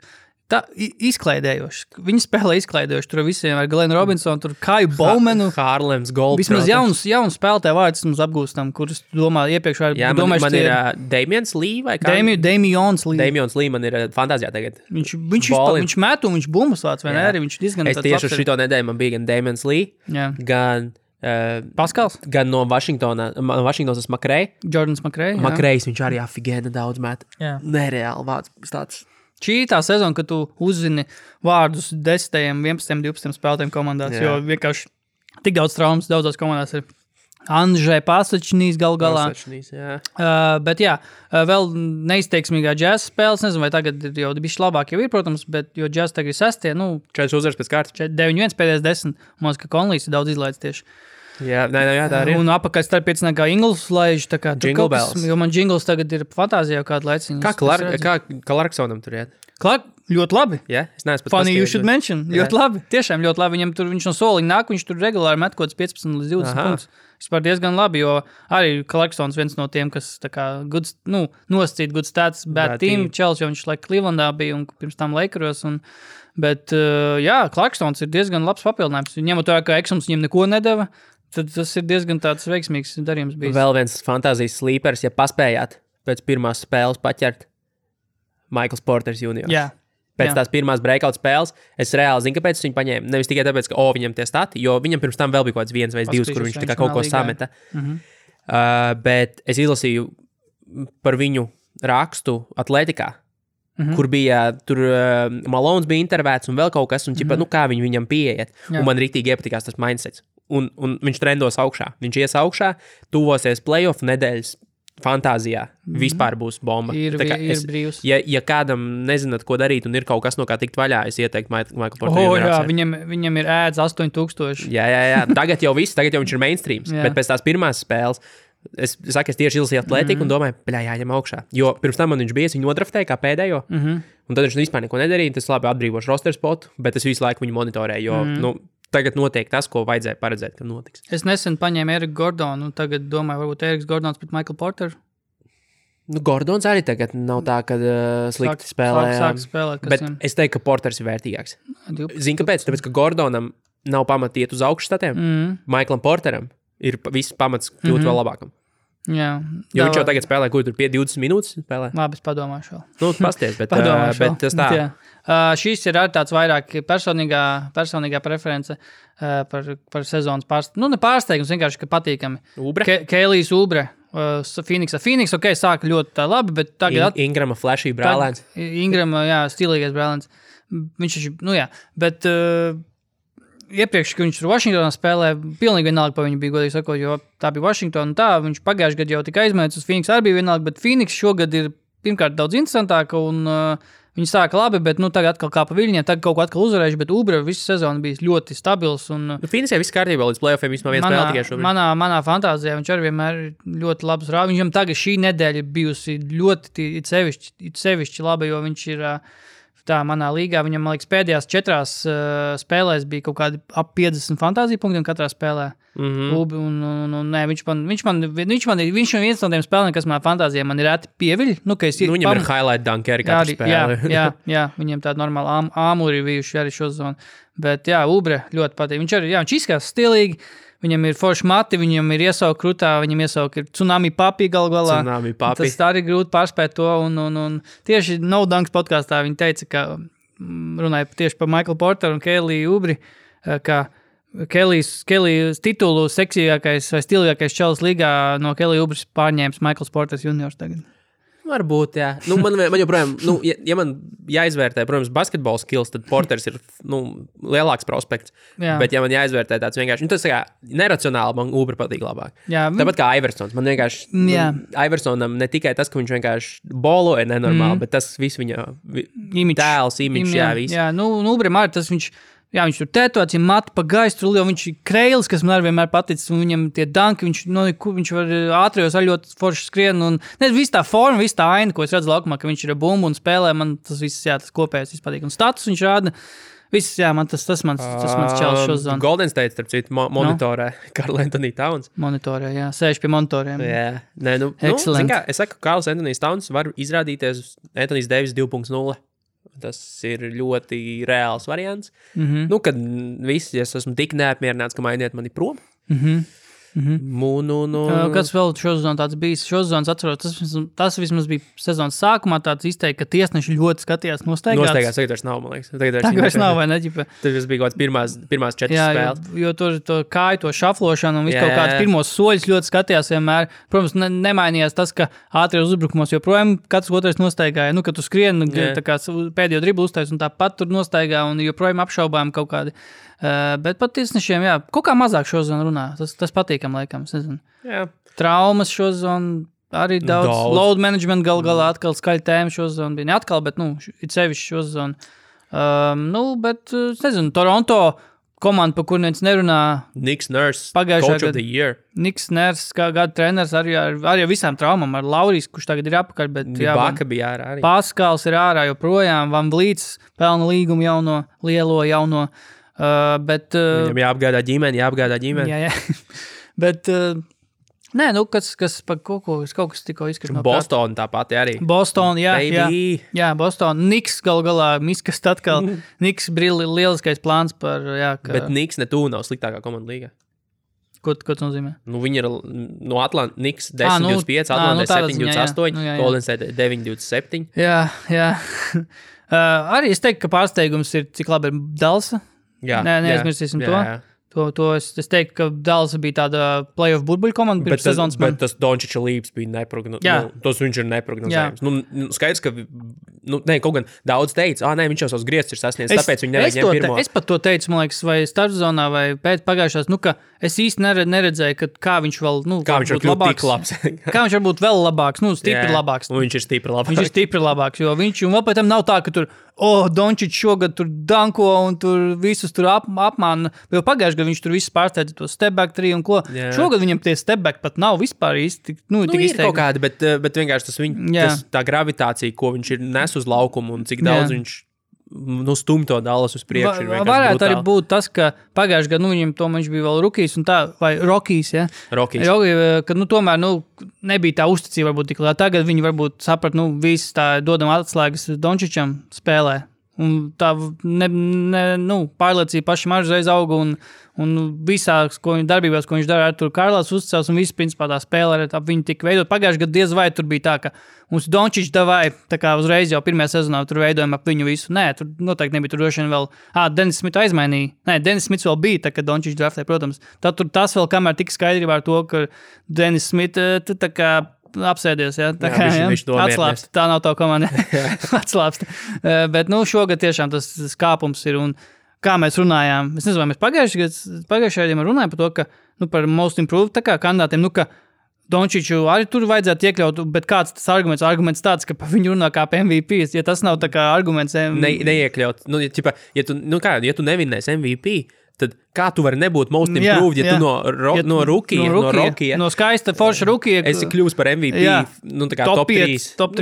izklaidējoši. Viņi spēlē izklaidējoši. Tur visiem ar Glenu Robinsonu, tur Kaju Bowmanu. Harlems Gold. Vismaz jauns spēlētāju vārdus mums apgūstam, kurus domā iepriekš var domājuši. Man ir Damians Lee vai kā? Damians Lee. Damians Lee man ir fantāzijā tagad. Viņš met un viņš bumbas vāc, vai ne? Arī viņš diezgan es tieši uz šito nedēļu man bija gan Damians Lee, gan Paskals? Gan no Vašingtonas Makrei. Jordans Makrei. Makrejs, viņš arī afigēna daudz met. Nereāli vārds tāds. Šī tā sezona, kad tu uzzini vārdus 10, 11, 12 spēlētājiem komandās, jo vienkārši tik daudz traumas daudzās komandās ir. Andžai Pasačnīs galā. Bet vēl neizteiksmīgā džēza spēles, nezinu, vai tagad jau bišķi labāk jau ir, protams, bet jo džēza tagad ir 6, 4 uzvaras pēc kārtas. 9-1 pēdējais 10, man ka Konlijs ir daudz izlaids tieši. Jā, tā arī. Un apakaļ starpiecinā kā Ingles laiž, tā kā Jingle Bells. Jo man Jingles tagad ir fantāzijā kādu laiciņu. Kā Clarksonam tur iet? Ļoti labi. Es neesmu pat Funny you should mention. Ļoti labi. Tiešām ļoti labi. Viņš no soliņa nāk, viņš tur regulāri met kaut 15 līdz 20 punktus. Vispār diezgan labi, jo arī Clarksons viens no tiem, kas tā kā nosacīt good stats, bad team, Čels, jo viņš Clevelandā bija un pirms tam Lakeros. Bet Clarksons ir diezgan labs papildinājums. Ņemot to, ka Eksums viņam neko nedeva, tad tas ir diezgan tāds veiksmīgs darījums bijis. Vēl viens fantāzijas sleepers, ja paspējāt pēc pirmās spēles paķert Michaels Porters juniors. Pēc tās pirmās breakout spēles, es reāli zinu, kāpēc viņu paņēmu. Nevis tikai tāpēc, ka viņam tie stati, jo viņam pirms tam vēl bija kaut kāds 1 vai 2, kur viņš tā kā kaut ko sameta. Bet es izlasīju par viņu rakstu atletikā, kur bija, tur Malones bija intervēts un vēl kaut kas, un kā viņi viņam pieiet. Un man rīktīgi iepatikās tas mindsets. Un viņš trendos augšā. Viņš ies augšā, tuvosies playoff nedēļas fantāzijā. Vispār būs bomba. Ir brīvs. Ja kādam nezināt, ko darīt un ir kaut kas, no kā tikt vaļā, es ieteiktu Michael Porter. Viņam ir ēdz 8000. Jā. Tagad jau viņš ir mainstreams. Bet pēc tās pirmās spēles, es tieši izlasīju atletiku un domāju, jāņem augšā. Jo pirms tam man viņš bija, viņu nodraftēja kā pēdējo, un tad viņš vispār neko nedarīja. Tas labi atbrīvošu roster spotu, bet es visu laiku viņu monitorēju, jo, tagad notiek tas, ko vajadzēja paredzēt, ka notiks. Es nesen paņēmu Eriku Gordonu, un tagad domāju, varbūt Eriks Gordons pret Michael Porter. Gordons arī tagad nav tā, ka slikti spēlē. Sāk spēlēt, bet es teiktu, ka Porters ir vērtīgāks. Zini, kāpēc? Tāpēc, ka Gordonam nav pamata iet uz augšstatiem. Michaelam Porteram ir viss pamats kļūt vēl labākam. Jā. Jo viņš jau tagad spēlē, kur tur 20 minūtes spēlē. Labi, es padomāšu vēl. Pasties, bet tas tā. Šīs ir arī tāds vairāk personīgā preference par sezonas pārsteigumu. Ne pārsteigums, vienkārši, ka patīkami. Ubre? Kēlijs Ubre. Phoenix, sāka ļoti labi, bet tagad... Ingrama flashy brālēns. Ingrama, stilīgais brālēns. Viņš taču, bet... Iepriekš, kad viņš tur Vašingtonā spēlē, pilnīgi vienalga pa viņu bija, godīgi sakot, jo tā bija Vašingtona, viņš pagājuši gadu jau tika aizmēts uz Phoenix, arī bija vienalga, bet Phoenix šogad ir pirmkārt daudz interesantāka un viņi sāka labi, bet tagad atkal kā pa viļņiem, tagad kaut ko atkal uzvarējuši, bet Ubre visu sezonu bijis ļoti stabils. Phoenixē viss kārtībā līdz playoffiem vismaz viens spēle tikai šobrīd. Manā fantāzijā viņš arī vienmēr ļoti labs rāvis. Viņam tagad šī nedēļa bijusi ļoti sevišķi laba, jo viņš ir... Tā manā līgā, viņam, man liekas, pēdējās 4 spēlēs bija kaut kādi ap 50 fantāzija punktiem katrā spēlē. Viņš ir viens no tiem spēlēm, kas manā fantāzijā man ir reti pieviļ. Viņam ir highlight dunkeri katru spēli. Jā, viņiem tāda normāla āmuri bijuši arī šo zonu. Bet Ubre ļoti patīk. Viņš izskatās stilīgi. Viņam ir forši mati, viņam ir iesauka krutā, viņam iesauka ir tsunami papi galvā. Tas tā arī grūti pārspēt to. Un tieši No Dunks podkāstā viņi teica, ka runāja tieši par Michael Porteru un Kēliju Ubri, ka Kēlijas titulu seksīgākais vai stilīgākais čalis līgā no Kēlija Ubris pārņēmis Michaels Porters juniors tagad. Varbūt, jā. Man joprojām, ja man jāizvērtē, protams, basketbola skills, tad Porters ir, lielāks prospekts. Jā. Bet ja man jāizvērtē tāds vienkārši, tas kā neracionāli, man Ubre patīk labāk. Jā. Tāpat kā Iversons. Man vienkārši, Iversonam ne tikai tas, ka viņš vienkārši boloja nenormāli, bet tas viss viņa tēls, imidžs, viss. Jā, Ubre arī tas viņš tur tetots, ja mati pa gaistu, jo viņš ir kreilis, kas man arī vienmēr paticis, un viņam tie danki, viņš var ātrijos arī ļoti forši skrien, un viss tā forma, viss tā aina, ko es redzu laukumā, ka viņš ir bumbu un spēlē, man tas viss, tas kopējais viss patīk. Un status viņš rāda, viss, man tas mans čels šo zonu. Golden State, starp citu, monitorē Karl Anthony Towns. Monitorē, sēž pie monitoriem. Jā, excellent. Es saku, Karls Anthony Towns var izrādīties Anthony Davis 2.0. Tas ir ļoti reāls variants. Nu, kad viss, ja es esmu tik neapmierināts, ka mainiet mani prom. Kas vēl šosezon tāds bijis? Šosezons atceros, tas vismaz bija sezonas sākumā tāds izteikti, ka tiesneši ļoti skatījās nostaigāts. Tagad vairs nav, man liekas. Tagad vairs nav, vai ne? Tad bija kaut kāds pirmās 4 spēles. Jo tur to kāju, to šaflošanu un visu kaut kāds pirmos soļus ļoti skatījās vienmēr. Protams, nemainījās tas, ka ātrijos uzbrukumos joprojām katrs otrais nostaigāja. Nu, kad tu skrien, tā kā pēdējo driblu uztais un tāpat tur nostaigā un joprojām apšaubām kaut kādi. Bet pat tiesnešiem, kaut kā mazāk šozon runā. Tas patīkam laikam, es nezinu. Traumas šozon, arī daudz. Load management galā atkal skaļa tēma šozon bija. Ne atkal, bet, it sevišķi šozon. Bet, es nezinu, Toronto komanda, pa kur neviens nerunā. Niks Nurse, coach of the year. Niks Nurse, kā gada treneris, arī ar visām traumām. Ar Laurijs, kurš tagad ir apakaļ, bet Baka bija ārā arī. Paskals ir ārā joprojām. Van Vlīts pelna līgumu jauno. Bet, viņam jāapgādā ģimeni. Jā. Bet, kas pa kaut kas tikko izskatās no Boston tāpat arī. Boston, jā, Boston. Niks galā, Miskas atkal. Niks lieliskais plāns par, Bet Niks netū nav sliktākā komanda līgā. Ko tas nozīmē? Viņi ir no Atlanta, Niks 10-25, Atlanta 7-28, Golden State 9-27. Jā. Arī es teiktu, ka pārsteigums ir, cik labi ir Dallasa. Neaizmirsīsim to. To es teiktu, ka Dallas bija tāda playoff burbuļu komanda pirms sezonas. Bet tas Dončiča līps bija neprognozējams. Tas viņš ir neprognozējams. Skaidrs, ka kaut gan daudz teica, viņš jau savus griestus ir sasniedzis, tāpēc viņi nevajag ņemt pirmo. Es pat to teicu, man liekas, vai starpzonā, vai pēc pagājušās, ka es īsti neredzēju, kā viņš vēl, kā viņš var būt tik labs. Kā viņš var būt vēl labāks, stipri labāks. Un viņš ir stipri labāks. Viņš ir stipri labāks, jo viņš, un vēl pēc tam nav tā, ka tur, Dončič šogad tur danko un tur visus tur apmāna. Jo pagājuši gadu viņš tur visus pārsteidza to step back 3 un ko. Šogad viņam tie step back pat nav vispār īsti. Tik ir kaut kādi, bet vienkārši tas tā gravitācija, ko viņš ir nes uz laukumu un cik daudz viņš stum to Dallas uz priekšu. Varētu arī būt tas, ka pagājuši gadu viņam viņš bija vēl rookies un tā, vai Rockies, ja? Rockies. Ka tomēr nebija tā uzticība varbūt tik liela. Tagad viņi varbūt saprat, visi tā dodam atslēgas Dončičam spēlē. Un tā pārliecība pašam arī uzreiz auga un visās darbībās, ko viņš dara, tur Karlās uzticās un viss principā tā spēle ar viņu tika veidot. Pagājuši gadu diez vai tur bija tā, ka mums Dončič davai, tā kā uzreiz jau pirmajā sezonā tur veidojam ap viņu visu. Nē, tur noteikti nebija, tur droši vien vēl, Denis Smits aizmainīja. Nē, Denis Smits vēl bija, tā kā Dončič draftē, protams. Tad tur tas vēl kamēr tika skaidrībā ar to, ka Denis Smits tā kā apsēdies, atslāpst, tā nav tā komanda, atslāpst. Bet, šogad tiešām tas kāpums ir, un kā mēs runājām, es nezinu, vai mēs pagājušajā gadījumā runājām par to, ka, par most improved, tā kā kandidātiem, ka Dončiču arī tur vajadzētu iekļaut, bet kāds tas arguments tāds, ka pa viņu runā kā pa MVP, ja tas nav tā kā arguments. Neiekļaut, ja tu nevinnēsi MVP, tad kā tu vari nebūt most improved, ja tu no rookie, no skaista forša rookie, esi kļūst par MVP, tā kā top 3, top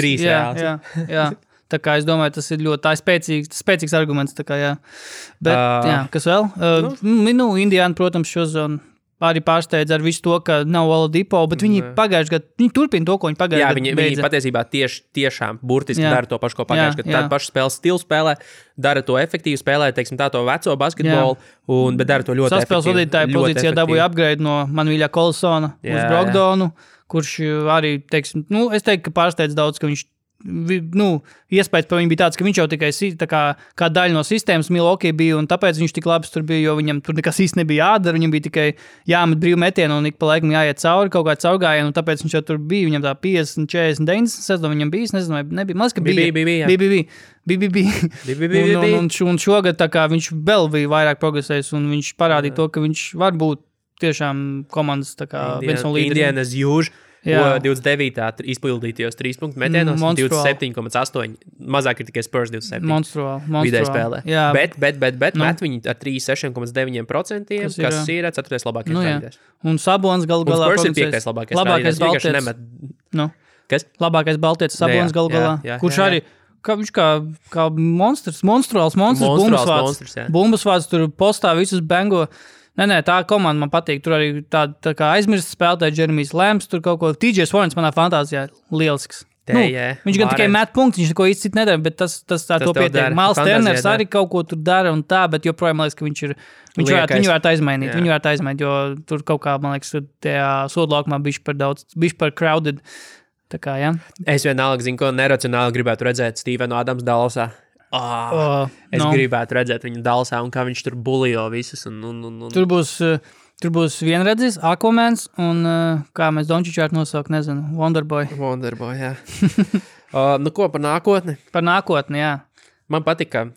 3, jā. Tā kā es domāju, tas ir ļoti spēcīgs arguments, tā kā, jā. Bet, kas vēl? Indiana, protams, šozon arī pārsteidz ar visu to, ka nav Oladipo, bet viņi pagājuši gadu, viņi turpina to, ko viņi pagājuši gadu beidza. Viņi patiesībā tiešām burtiski dara to pašu, ko pagājuši gadu. Tādu pašu spēles stilu spēlē, dara to efektīvi spēlē, teiksim tā to veco basketbolu, bet dara to ļoti efektīvi. Saspēles vadītāja pozīcijā dabūja upgrade no Manuīļa Kolsona uz Brogdonu, kurš arī, teiksim, es teiktu, ka pārsteidz daudz, ka viņš iespējas par viņu bija tāds, ka viņš jau tikai kā daļa no sistēmas Milwaukee bija, un tāpēc viņš tik labs tur bija, jo viņam tur nekas īsti nebija jādara, viņam bija tikai jāmet brīvu metienu un ik pa laikam jāiet cauri kaut kā caurgājienu, un tāpēc viņš jau tur bija, viņam tā 50, 40, 90 sezonu viņam bija, es nezinu, vai nebija, maz, ka bija. Un šogad tā kā viņš vēl bija vairāk progresējis, un viņš parādīja to, ka viņš var būt tiešām komandas tā kā viens no līderiem. Indianas Jūž. 29. izpildītajos 3 punktu metienos, 27,8. Mazāk ir tikai Spurs 27. Monstruāli. Vidēji spēlē. Bet met viņi ar 36,9%, kas ir 4. labākais spēlētājs. Un Sabons galu galā. Un Spurs ir 5. labākais baltietis. Kas? Labākais baltietis Sabons galu galā. Kurš arī, viņš kā monstruāls bumbasvārds tur postā visus bengo. Nē, tā komanda man patīk. Tur arī tā kā aizmirst spēlētāji Jeremijs Lēms, tur kaut ko. TJ Swarns manā fantāzijā lielisks. Viņš gan tikai met punktus, viņš neko īsti nedara, bet tas tā to pietiek. Miles Turners arī kaut ko tur dara un tā, bet joprojām, man liekas, ka viņu varētu aizmainīt. Viņu varētu aizmainīt, jo tur kaut kā, man liekas, tajā sodlaukumā bišķi par crowded. Tā kā, jā. Es vienalga zinu, ko neracionāli gribētu redzēt Stevenu Adams Dallasā. Es gribētu redzēt viņu Dallasā un kā viņš tur bulijo visus. Tur būs vienredzis, Aquamans un kā mēs Dončiču vārtu nosaukt, nezinu, Wonderboy. Wonderboy, jā. Ko par nākotni? Par nākotni, jā. Man patika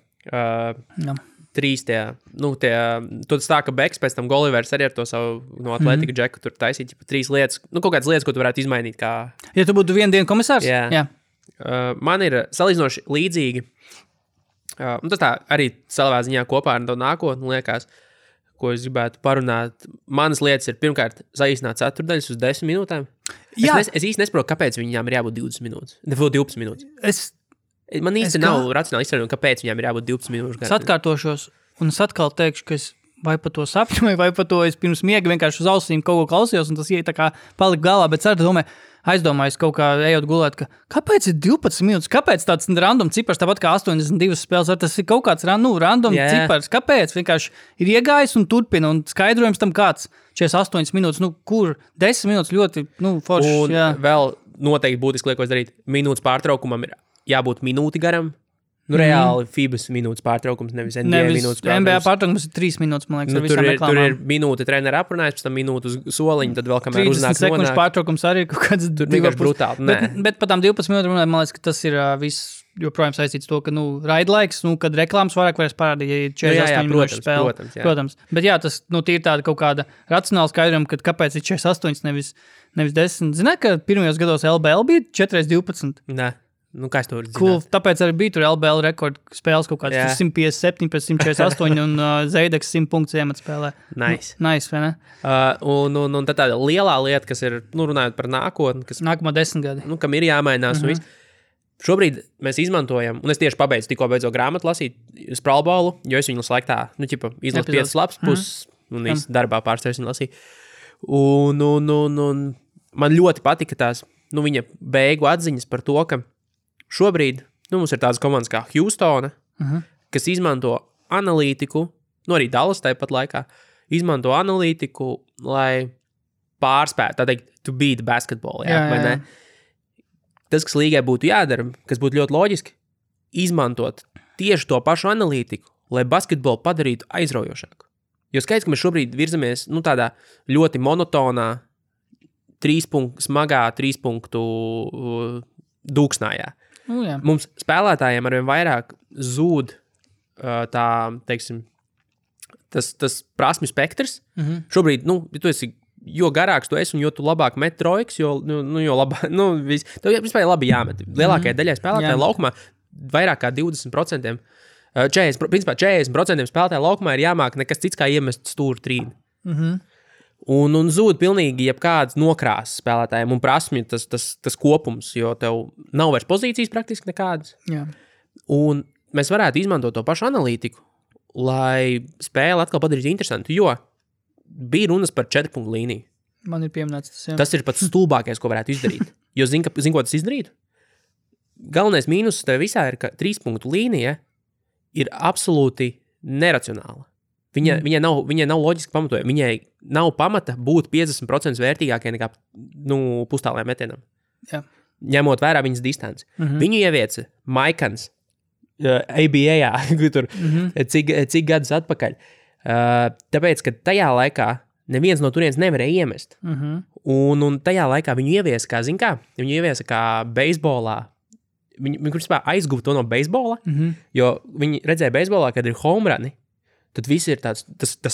trīs tad tā, ka Beks pēc tam Golivers arī ar to savu no Atletika Džeku tur taisīt, trīs lietas, kaut kādas lietas, ko tu varētu izmainīt. Kā... Ja tu būtu vienu dienu komisārs? Jā. Man ir salīdzinoši līdzīgi, tas tā arī savā ziņā kopā ar to nākotni liekas, ko es gribētu parunāt. Manas lietas ir pirmkārt saīsināt ceturdaļas uz 10 minūtēm. Es īsti nesaprotu, kāpēc viņām ir jābūt 20 minūtes. 12 minūtes. Man īsti nav racionāli izstrādāt, kāpēc viņām ir jābūt 12 minūšu. Es atkārtošos, un es atkal teikšu, ka es vai pa to sapņoju, vai pa to es pirms miega vienkārši uz ausīm kaut ko klausījos, un tas tā kā palika galā, bet aizdomājos kaut kā ejot gulēt, ka kāpēc ir 12 minūtes, kāpēc tāds random cipars, tāpat kā 82 spēles, tas ir kaut kāds random cipars, kāpēc vienkārši ir iegājis un turpina, un skaidrojums tam kāds 48 minūtes, kur 10 minūtes ļoti, forši. Un vēl noteikti būtiski liekos darīt, minūtes pārtraukumam ir jābūt minūti garam. Reāli FIBAs minūtes pārtraukums, nevis NBA minūtes pārtraukums. NBA pārtraukums ir 3 minūtes, man liekas, tur ir minūte trenera aprunājis, pēc tam minūte uz soliņu, tad vēl kamēr uznāk 30 sekundžu pārtraukums arī kaut kāds... Tur vienkārši brutāli, bet pa tām 12 minūtēm, man liekas, ka tas ir viss joprojām saistīts to, ka, raidlaiks, kad reklāmas vairāk vairs parādīja, ja 48 minūšu spēle. Protams. Bet jā, tas, tīri tāda kaut kāda racionāla skaidrojuma, ka kāpēc ir 48, nevis 10. Zināt, ka pirmajos gados LBL bija 4x12? Nē. Kā es to varu zināt? Cool, tāpēc arī bija tur LBL rekordu spēles kaut kāds 157 pēc 148 un Zeideks 100 punktus iemet spēlē. Nice, vai ne? Un tad tāda lielā lieta, kas ir, runājot par nākotni, kas... Nākamā 10 gadi. Kam ir jāmainās un viss. Šobrīd mēs izmantojam, un es tieši tikko beidzot grāmatu lasīt Spralbolu, jo es viņu laiku tā, izlasu 5 lapas puses un darbā pārstāvis viņu lasīt. Un man ļoti patika tās, viņa beigu atziņas par to, ka šobrīd mums ir tādas komandas kā Houstona, kas izmanto analītiku, arī Dallas tāpat laikā, izmanto analītiku, lai pārspētu, tā teikt, to beat basketball. Vai ne? Tas, kas līgai būtu jādara, kas būtu ļoti loģiski, izmantot tieši to pašu analītiku, lai basketbolu padarītu aizraujošāku. Jo skaidrs, ka mēs šobrīd virzamies tādā ļoti monotonā, smagā 3 punktu dūksnājā. Mums spēlētājiem arvien vairāk zūd tā, teiksim, tas prasmi spektrs. Šobrīd, tu esi, jo garāks tu esi un jo tu labāk met trojkas, jo labāk, tev vispār labi jāmet. Lielākajai daļai spēlētāju laukumā vairāk kā 20%, 40% spēlētāju laukumā ir jāmāk nekas cits kā iemest stūru trīni. Un zūd pilnīgi jebkāds nokrāsas spēlētājiem un prasmi tas kopums, jo tev nav vairs pozīcijas praktiski nekādas. Jā. Un mēs varētu izmantot to pašu analītiku, lai spēli atkal padarītu interesantu, jo bija runas par 4 punktu līniju. Man ir pieminēts tas, jā. Tas ir pats stulbākais, ko varētu izdarīt. Jo zin, ko tas izdarītu? Galvenais mīnus tev visā ir, ka 3 punktu līnija ir absolūti neracionāla. Viņai nav loģiski pamatojuma. Viņai nav pamata būt 50% vērtīgākai nekā pustālajām metienam. Jā. Ņemot vērā viņas distanci. Viņu ievieca Maikans ABA, tur cik gadus atpakaļ. Tāpēc, ka tajā laikā neviens no turienes nevarēja iemest. Un tajā laikā viņu ieviesa, viņu ieviesa kā beisbolā. Viņi aizguva to no beisbola, jo viņi redzēja beisbolā, kad ir home runi. Tad viss ir tas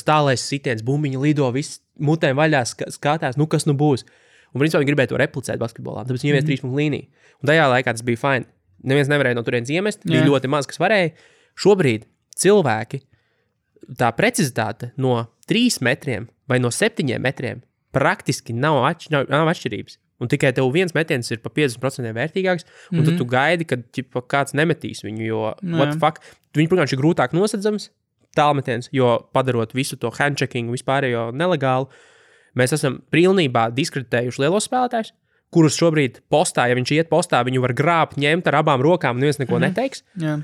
tālais sitiens, bumbiņi lido, viss mutēm vaļā skatās, kas būs. Un principā viņi gribēja to replicēt basketbolā, tāpēc viņi ievies 3 punktu līniju. Un tajā laikā tas bija fine. Neviens nevarēja no turienes iemest, bija ļoti maz, kas varēja. Šobrīd cilvēki, tā precizitāte no 3 metriem vai no 7 metriem praktiski nav atšķirības. Un tikai tev viens metiens ir pa 50% vērtīgāks, un tad tu gaidi, kad kāds nemetīs viņu, jo what the fuck, viņi, protams, ir grūtāk nosedzams, tālmetiens, jo padarot visu to handcheckingu vispārējo nelegālu, mēs esam pilnībā diskreditējuši lielos spēlētājus, kurus šobrīd postā, ja viņš iet postā, viņu var grābt, ņemt ar abām rokām, neviens neko neteiks. Jā.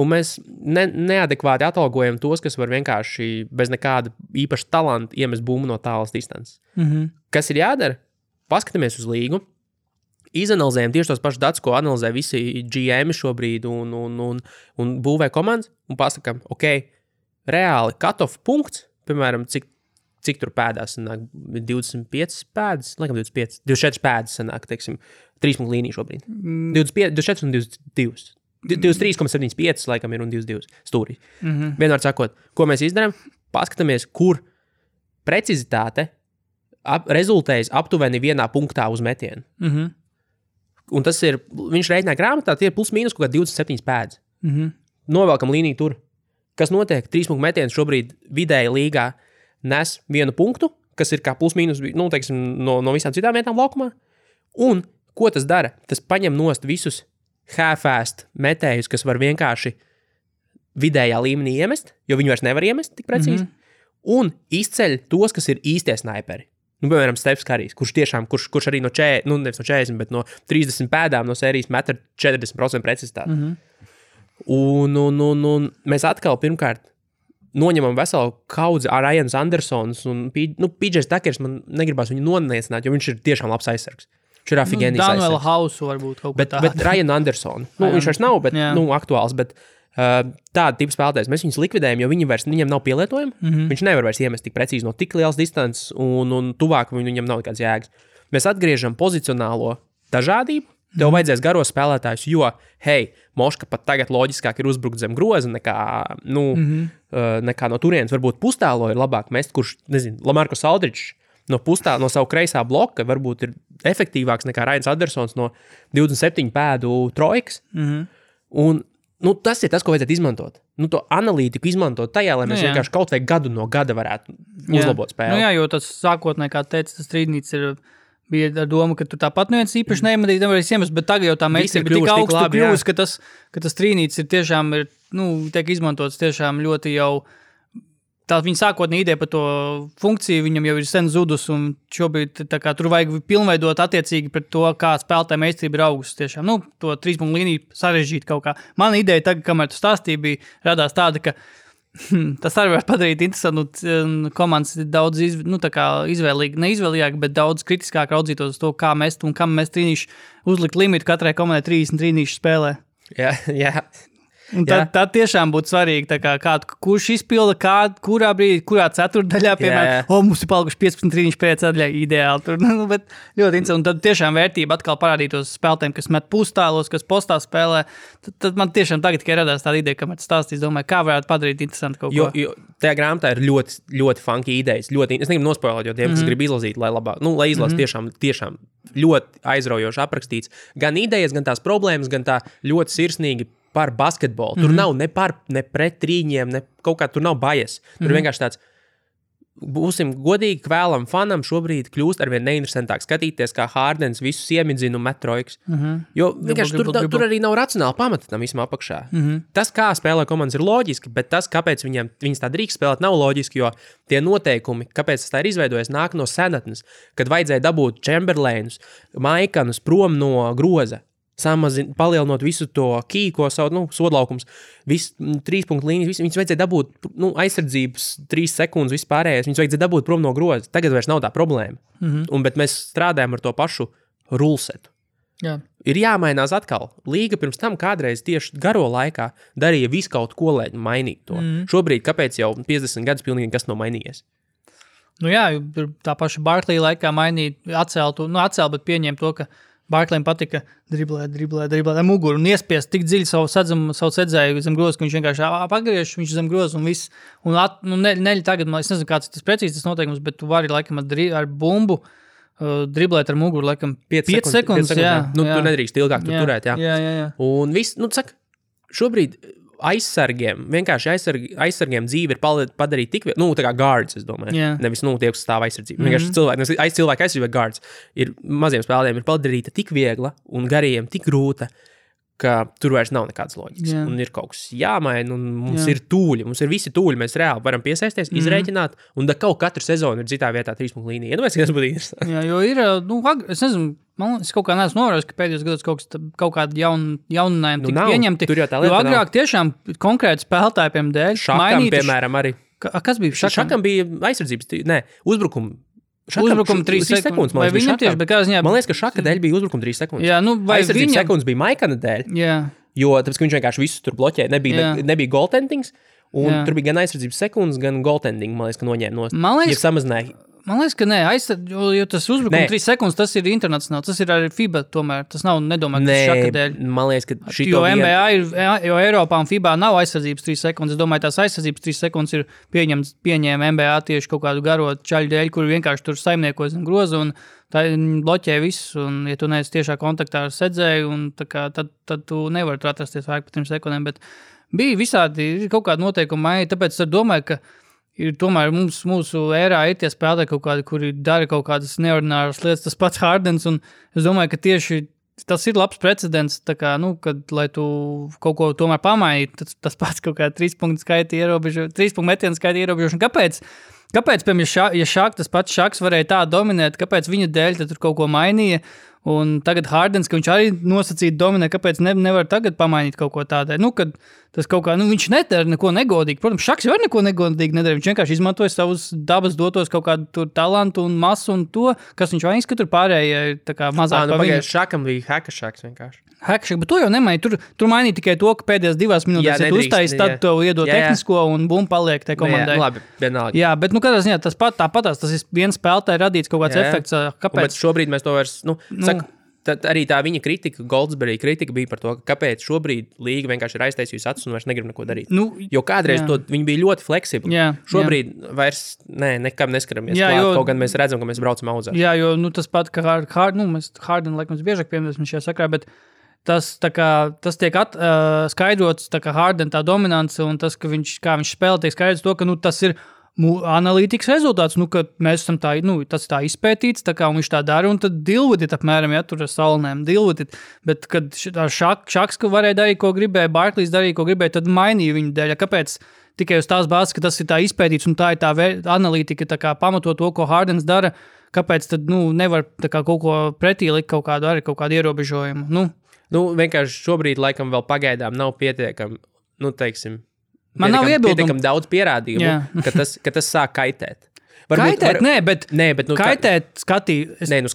Un mēs neadekvāti atalgojam tos, kas var vienkārši bez nekāda īpaša talanta iemest bumbu no tālas distances. Kas ir jādara? Paskatāmies uz līgu, izanalizējam tieši tos pašus datus, ko analizē visi GM šobrīd un būvē komandas, un pasakām, ok, reāli cut-off punkts, piemēram, cik tur pēdās sanāk, 25 pēdas, laikam 24 pēdas sanāk, teiksim, 3 punktu līnija šobrīd. 24 un 22. 23,75 laikam ir un 22 stūrī. Vienmēr sakot, ko mēs izdarām, paskatāmies, kur precizitāte rezultējas aptuveni vienā punktā uz metienu. Un tas ir, viņš rēķinā grāmatā, tie ir plus mīnus kaut kā 27 pēdas. Novelkam līniju tur. Kas notiek? 3 punktu metiens šobrīd vidēji līgā nes 1 punktu, kas ir kā plus mīnus, nu, teiksim, no visām citām vietām laukumā. Un ko tas dara? Tas paņem nost visus half-fast metējus, kas var vienkārši vidējā līmenī iemest, jo viņi vairs nevar iemest tik precīzi, un izceļ tos, kas ir īstie snaiperi. Nu, piemēram, Stefs Karijs, kurš arī nevis no 40, bet no 30 pēdām no sērijas met ar 40% precizitāti. Un mēs atkal pirmkārt noņemam veselu kaudzi ar Ryans Andersons un PJs Takers, man negribās viņu noniecināt, jo viņš ir tiešām labs aizsargs. Viņš ir afigēnijas aizsargs. Daniela Hausu varbūt kaut ko tādu. Bet Ryan Anderson, viņš vairs nav, bet aktuāls, bet tāda tipa spēlētājs, mēs viņus likvidējam, jo viņam nav pielietojumi, viņš nevar vairs iemest tik precīzi no tik lielas distances un tuvāk viņam nav nekāds jēgas. Mēs atgriežam pozicionālo dažādību, tev vajadzēs garos spēlētājus, jo, hei, Moška pat tagad loģiskāk ir uzbrukt zem groza nekā no turienes, varbūt pustālo ir labāk mest, kurš, nezinu, Lamarcus Aldridge no savu kreisā bloka varbūt ir efektīvāks nekā Ryans Andersons no 27 pēdu trojkas. Un tas ir tas, ko vajadzētu izmantot. To analītiku izmantot tajā, lai mēs vienkārši kaut vai gadu no gada varētu uzlabot spēli. Jā, jo tas sākotnēji, kā teica, tas strīdnīts bija ar domu, ka tu tāpat neviens īpaši nevarēs iemest, bet tagad jau tā meistarība ir tik augstu kļuvusi, ka tas strīdnīts ir tiešām, tiek izmantots tiešām ļoti jau. Tā viņa sākotnēji ideja par to funkciju, viņam jau ir sen zudus, un šobrīd tur vajag pilnveidot attiecīgi pret to, kā spēlētāja meistarība ir augusi tiešām. To 3 punktu līniju sarežģīt kaut kā. Mana ideja tagad, kamēr tu stāstīji, bija radās tāda, ka tas arī var padarīt interesantu, komandas daudz neizvēlīgāk, bet daudz kritiskāk raudzītos uz to, kā mest un kam mēs trīnīši uzlikt limitu katrai komandai 30 trīnīšu spēlē. Jā. Un tad tiešām būtu svarīgi, kurš izpilda, kurā brīdī, kurā ceturtdaļā, piemēram, mums ir palikuši 15 trīniši pēc atļā ideāli. Tur, bet ļoti interesanti. Un tad tiešām vērtība atkal parādītos spēlētājiem, kas met pustālos, kas postā spēlē. Tad man tiešām tagad tikai radās tāda ideja, kamēr stāstīs, domāju, kā varētu padarīt interesanti kaut ko. Jo tajā grāmatā ir ļoti, ļoti funky idejas. Es negribu nospoilēt, jo tiem, kas grib izlasīt, lai labāk, lai izlas tiešām ļoti aizraujoši aprakstīts. Gan idejas, gan tās problēmas, gan tā ļoti sirsnīgi par basketbolu. Tur nav ne pret trīņiem, ne kaut kā tur nav bajas. Tur vienkārši tāds, būsim godīgi, kvēlam fanam šobrīd kļūst arvien neinteresantāk skatīties, kā Hardens visus iemidzina un met trojkas. Jo vienkārši tur arī nav racionāli pamata tam visam apakšā. Tas, kā spēlē komandas, ir loģiski, bet tas, kāpēc viņas tā drīkst spēlēt, nav loģiski, jo tie noteikumi, kāpēc tas tā ir izveidojies, nāk no senatnes, kad vajadzēja dabūt Chamberlainus, Maikanus prom no groza. Palielinot visu to kīko savu, sodlaukums, visu 3 punktu līnijas, viņus vajadzēja dabūt, aizsardzības 3 sekundes vispārējais, viņus vajadzēja dabūt prom no groza. Tagad vairs nav tā problēma. Bet mēs strādājam ar to pašu rulsetu. Jā. Ir jāmainās atkal. Līga pirms tam kādreiz tieši garo laikā darīja visu kaut ko, lai mainītu to. Šobrīd, kāpēc jau 50 gadus pilnīgi kas nav mainījies? Jā, tā paša Barklija laikā atcēl, bet pieņēma to, ka Barklējiem patika driblēt muguru un iespiest tik dziļi savu sedzēju zem groza, ka viņš vienkārši pagriež, viņš zem groza un viss. Tagad, es nezinu, kāds tas precīzi tas noteikums, bet tu vari laikam ar bumbu driblēt ar muguru, laikam 5 sekundes. Jā. Tu nedrīkst ilgāk tur turēt, jā. Jā. Un viss, šobrīd aizsargiem dzīve ir padarīt tik, tā kā guards, es domāju. Yeah. Nevis, tie, kas stāv aizsardzību. Vienkārši cilvēki aizsardzība guards ir maziem spēlētājiem ir padarīta tik viegla un gariem tik grūta, ka tur vairs nav nekādas loģikas. Yeah. Un ir kaut kas jāmaina, un mums ir tūļi, mums ir visi tūļi, mēs reāli varam piesaisties, izrēķināt, un kaut katru sezonu ir citā vietā 3 punktu līnija. Iedomājies, ka tas būtu interesanti. Jā, jo ir, es nezinu, man liekas, kaut kā neesmu novērojis, ka pēdējos gados kaut kādi jauninājumi tika pieņemti. Tur jau tā lieta agrāk tiešām konkrēti spēlētājiem dēļ. Šakam, piemēram, arī. Kas bija šakam? Šakam bija aizsardzības, uzbrukuma 3 sekundes. Vai viņam tieši, bet kā ziņā... Man liekas, ka šaka dēļ bija uzbrukuma 3 sekundes. Jā, vai aizsardzības sekundes bija Maikana dēļ. Jā. Jo tāpēc, ka viņš vienkārši visus tur bloķēja. Nebija goaltendings, un tur bija gan aizsardzības sekundes, gan goaltending, man liekas, ka noņēma nost. Ja samazināja. Man liekas, ka nē, jo tas uzbrukums 3 sekundes, tas ir internacionāli, tas ir arī FIBA tomēr, tas nav nedomāts šaka dēļ. Man liekas, ka jo NBA jo Eiropā un FIBA nav aizsardzības 3 sekundes, es domāju, tās aizsardzības 3 sekundes ir pieņēma NBA tieši kaut kādu garo čaļu dēļ, kur vienkārši tur saimniekos un groza un tā bloķē visus, un ja tu neesi tiešā kontaktā ar sedzēju, un tad tu nevari tur atrasties vairāk par 3 sekundēm, bet bija visādi kaut kādi noteikumi maiņi, tāpēc es domāju, ka tomēr mūsu ērā ir tie spēlētāji kaut kādi, kuri dara kaut kādas neordināras lietas, tas pats Hardens, un es domāju, ka tieši tas ir labs precedents, tā kā, kad, lai tu kaut ko tomēr pamainītu, tas pats kaut kā 3 punktu skaita ierobežo, 3 punktu metienu skaita ierobežošana. Kāpēc, piemēram, ja tas pats Šaks varēja tā dominēt, kāpēc viņa dēļ tad tur kaut ko mainīja? Un tagad Hardens, ka viņš arī nosacīti dominē, kāpēc nevar tagad pamainīt kaut ko tādai. Kad tas kaut kā, viņš nedara neko negodīgi. Protams, Šaks jau neko negodīgi nedara. Viņš vienkārši izmantoja savus dabas dotos kaut kādu tur talantu un masu un to, kas viņš vainas, ka tur pārējie tā kā mazāk pa viņu. Šakam bija heka Šaks vienkārši. Hekšak, bet to jau nemainīja. Tur mainīja tikai to, ka pēdējās 2 minūtēs uztaisīs, tad tev iedod tehnisko un bum paliek te komandai. Jā, labi, vienalga. Jā, bet katrā ziņā tāpatās, tas ir viens spēlētāji radīts kaut kāds efekts. Kāpēc? Bet šobrīd mēs to vairs, saka, arī tā viņa kritika, Goldsberry kritika bija par to, ka kāpēc šobrīd līga vienkārši ir aiztaisījusi acis un vairs negrib neko darīt. Jo kādreiz viņi bija ļoti fleksibli. Šobrīd vairs nekam neskaramies klāt, kaut gan mēs redzam, ka mēs braucam auzā. Jā, jo tas pat, ka mēs Harden, laikam, biežāk piemēram šajā sakrā, bet tas tiek skaidrots, tā kā Harden tā dominance un tas, ka kā viņš spēlē, tiek skaidrots to, ka tas ir analītikas rezultāts, ka mēs esam tas tā izpētīts, tā kā viņš tā dara, un tad dilvutit apmēram, ja tur ar salnēm dilvutit, bet kad Šaks, ka varēja darīt, ko gribēja, Barklīs darīja, ko gribēja, tad mainīja viņu dēļ, kāpēc tikai uz tās bāzes, ka tas ir tā izpētīts, un tā ir tā analītika, tā kā pamato to, ko Hardens dara, kāpēc tad, nevar tā kā kaut ko pretī likt kaut kādu ierobežojumu, vienkārši šobrīd laikam vēl pagaidām nav pietiekami, man nav pietiekami daudz pierādījumu, ka tas sāk kaitēt. Bet kaitēt skatītājiem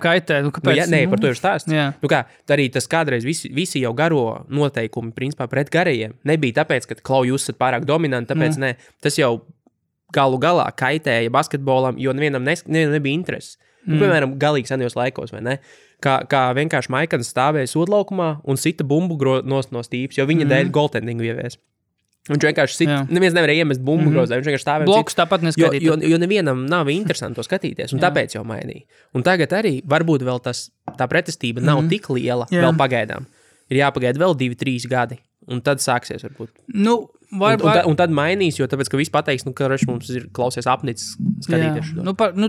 kaitē. Kāpēc? Par to ir stāsts. Arī tas kādreiz visi jau garo noteikumi, principā pret garajiem, nebija tāpēc, ka jūs esat pārāk dominanti, tāpēc tas jau galu galā kaitēja basketbolam, jo nevienam nebija interesi. Piemēram, galīgi senajos laikos, vai ne? Kā vienkārši Maikans stāvēja sodlaukumā un sita bumbu no stīpas, jo viņa dēļ goaltendingu ievies. Viņš vienkārši neviens nevarēja iemest bumbu grozā, viņš vienkārši stāvēja. Blokus tāpat neskatīt. Jo nevienam nav interesanti to skatīties, un tāpēc jau mainīja. Un tagad arī varbūt vēl tā pretestība nav tik liela vēl pagaidām. Ir jāpagaida vēl 2-3 gadi, un tad sāksies varbūt. Un tad mainīs, jo tāpēc, ka viss pateiks, ka mums ir klausies apnicis skatīties.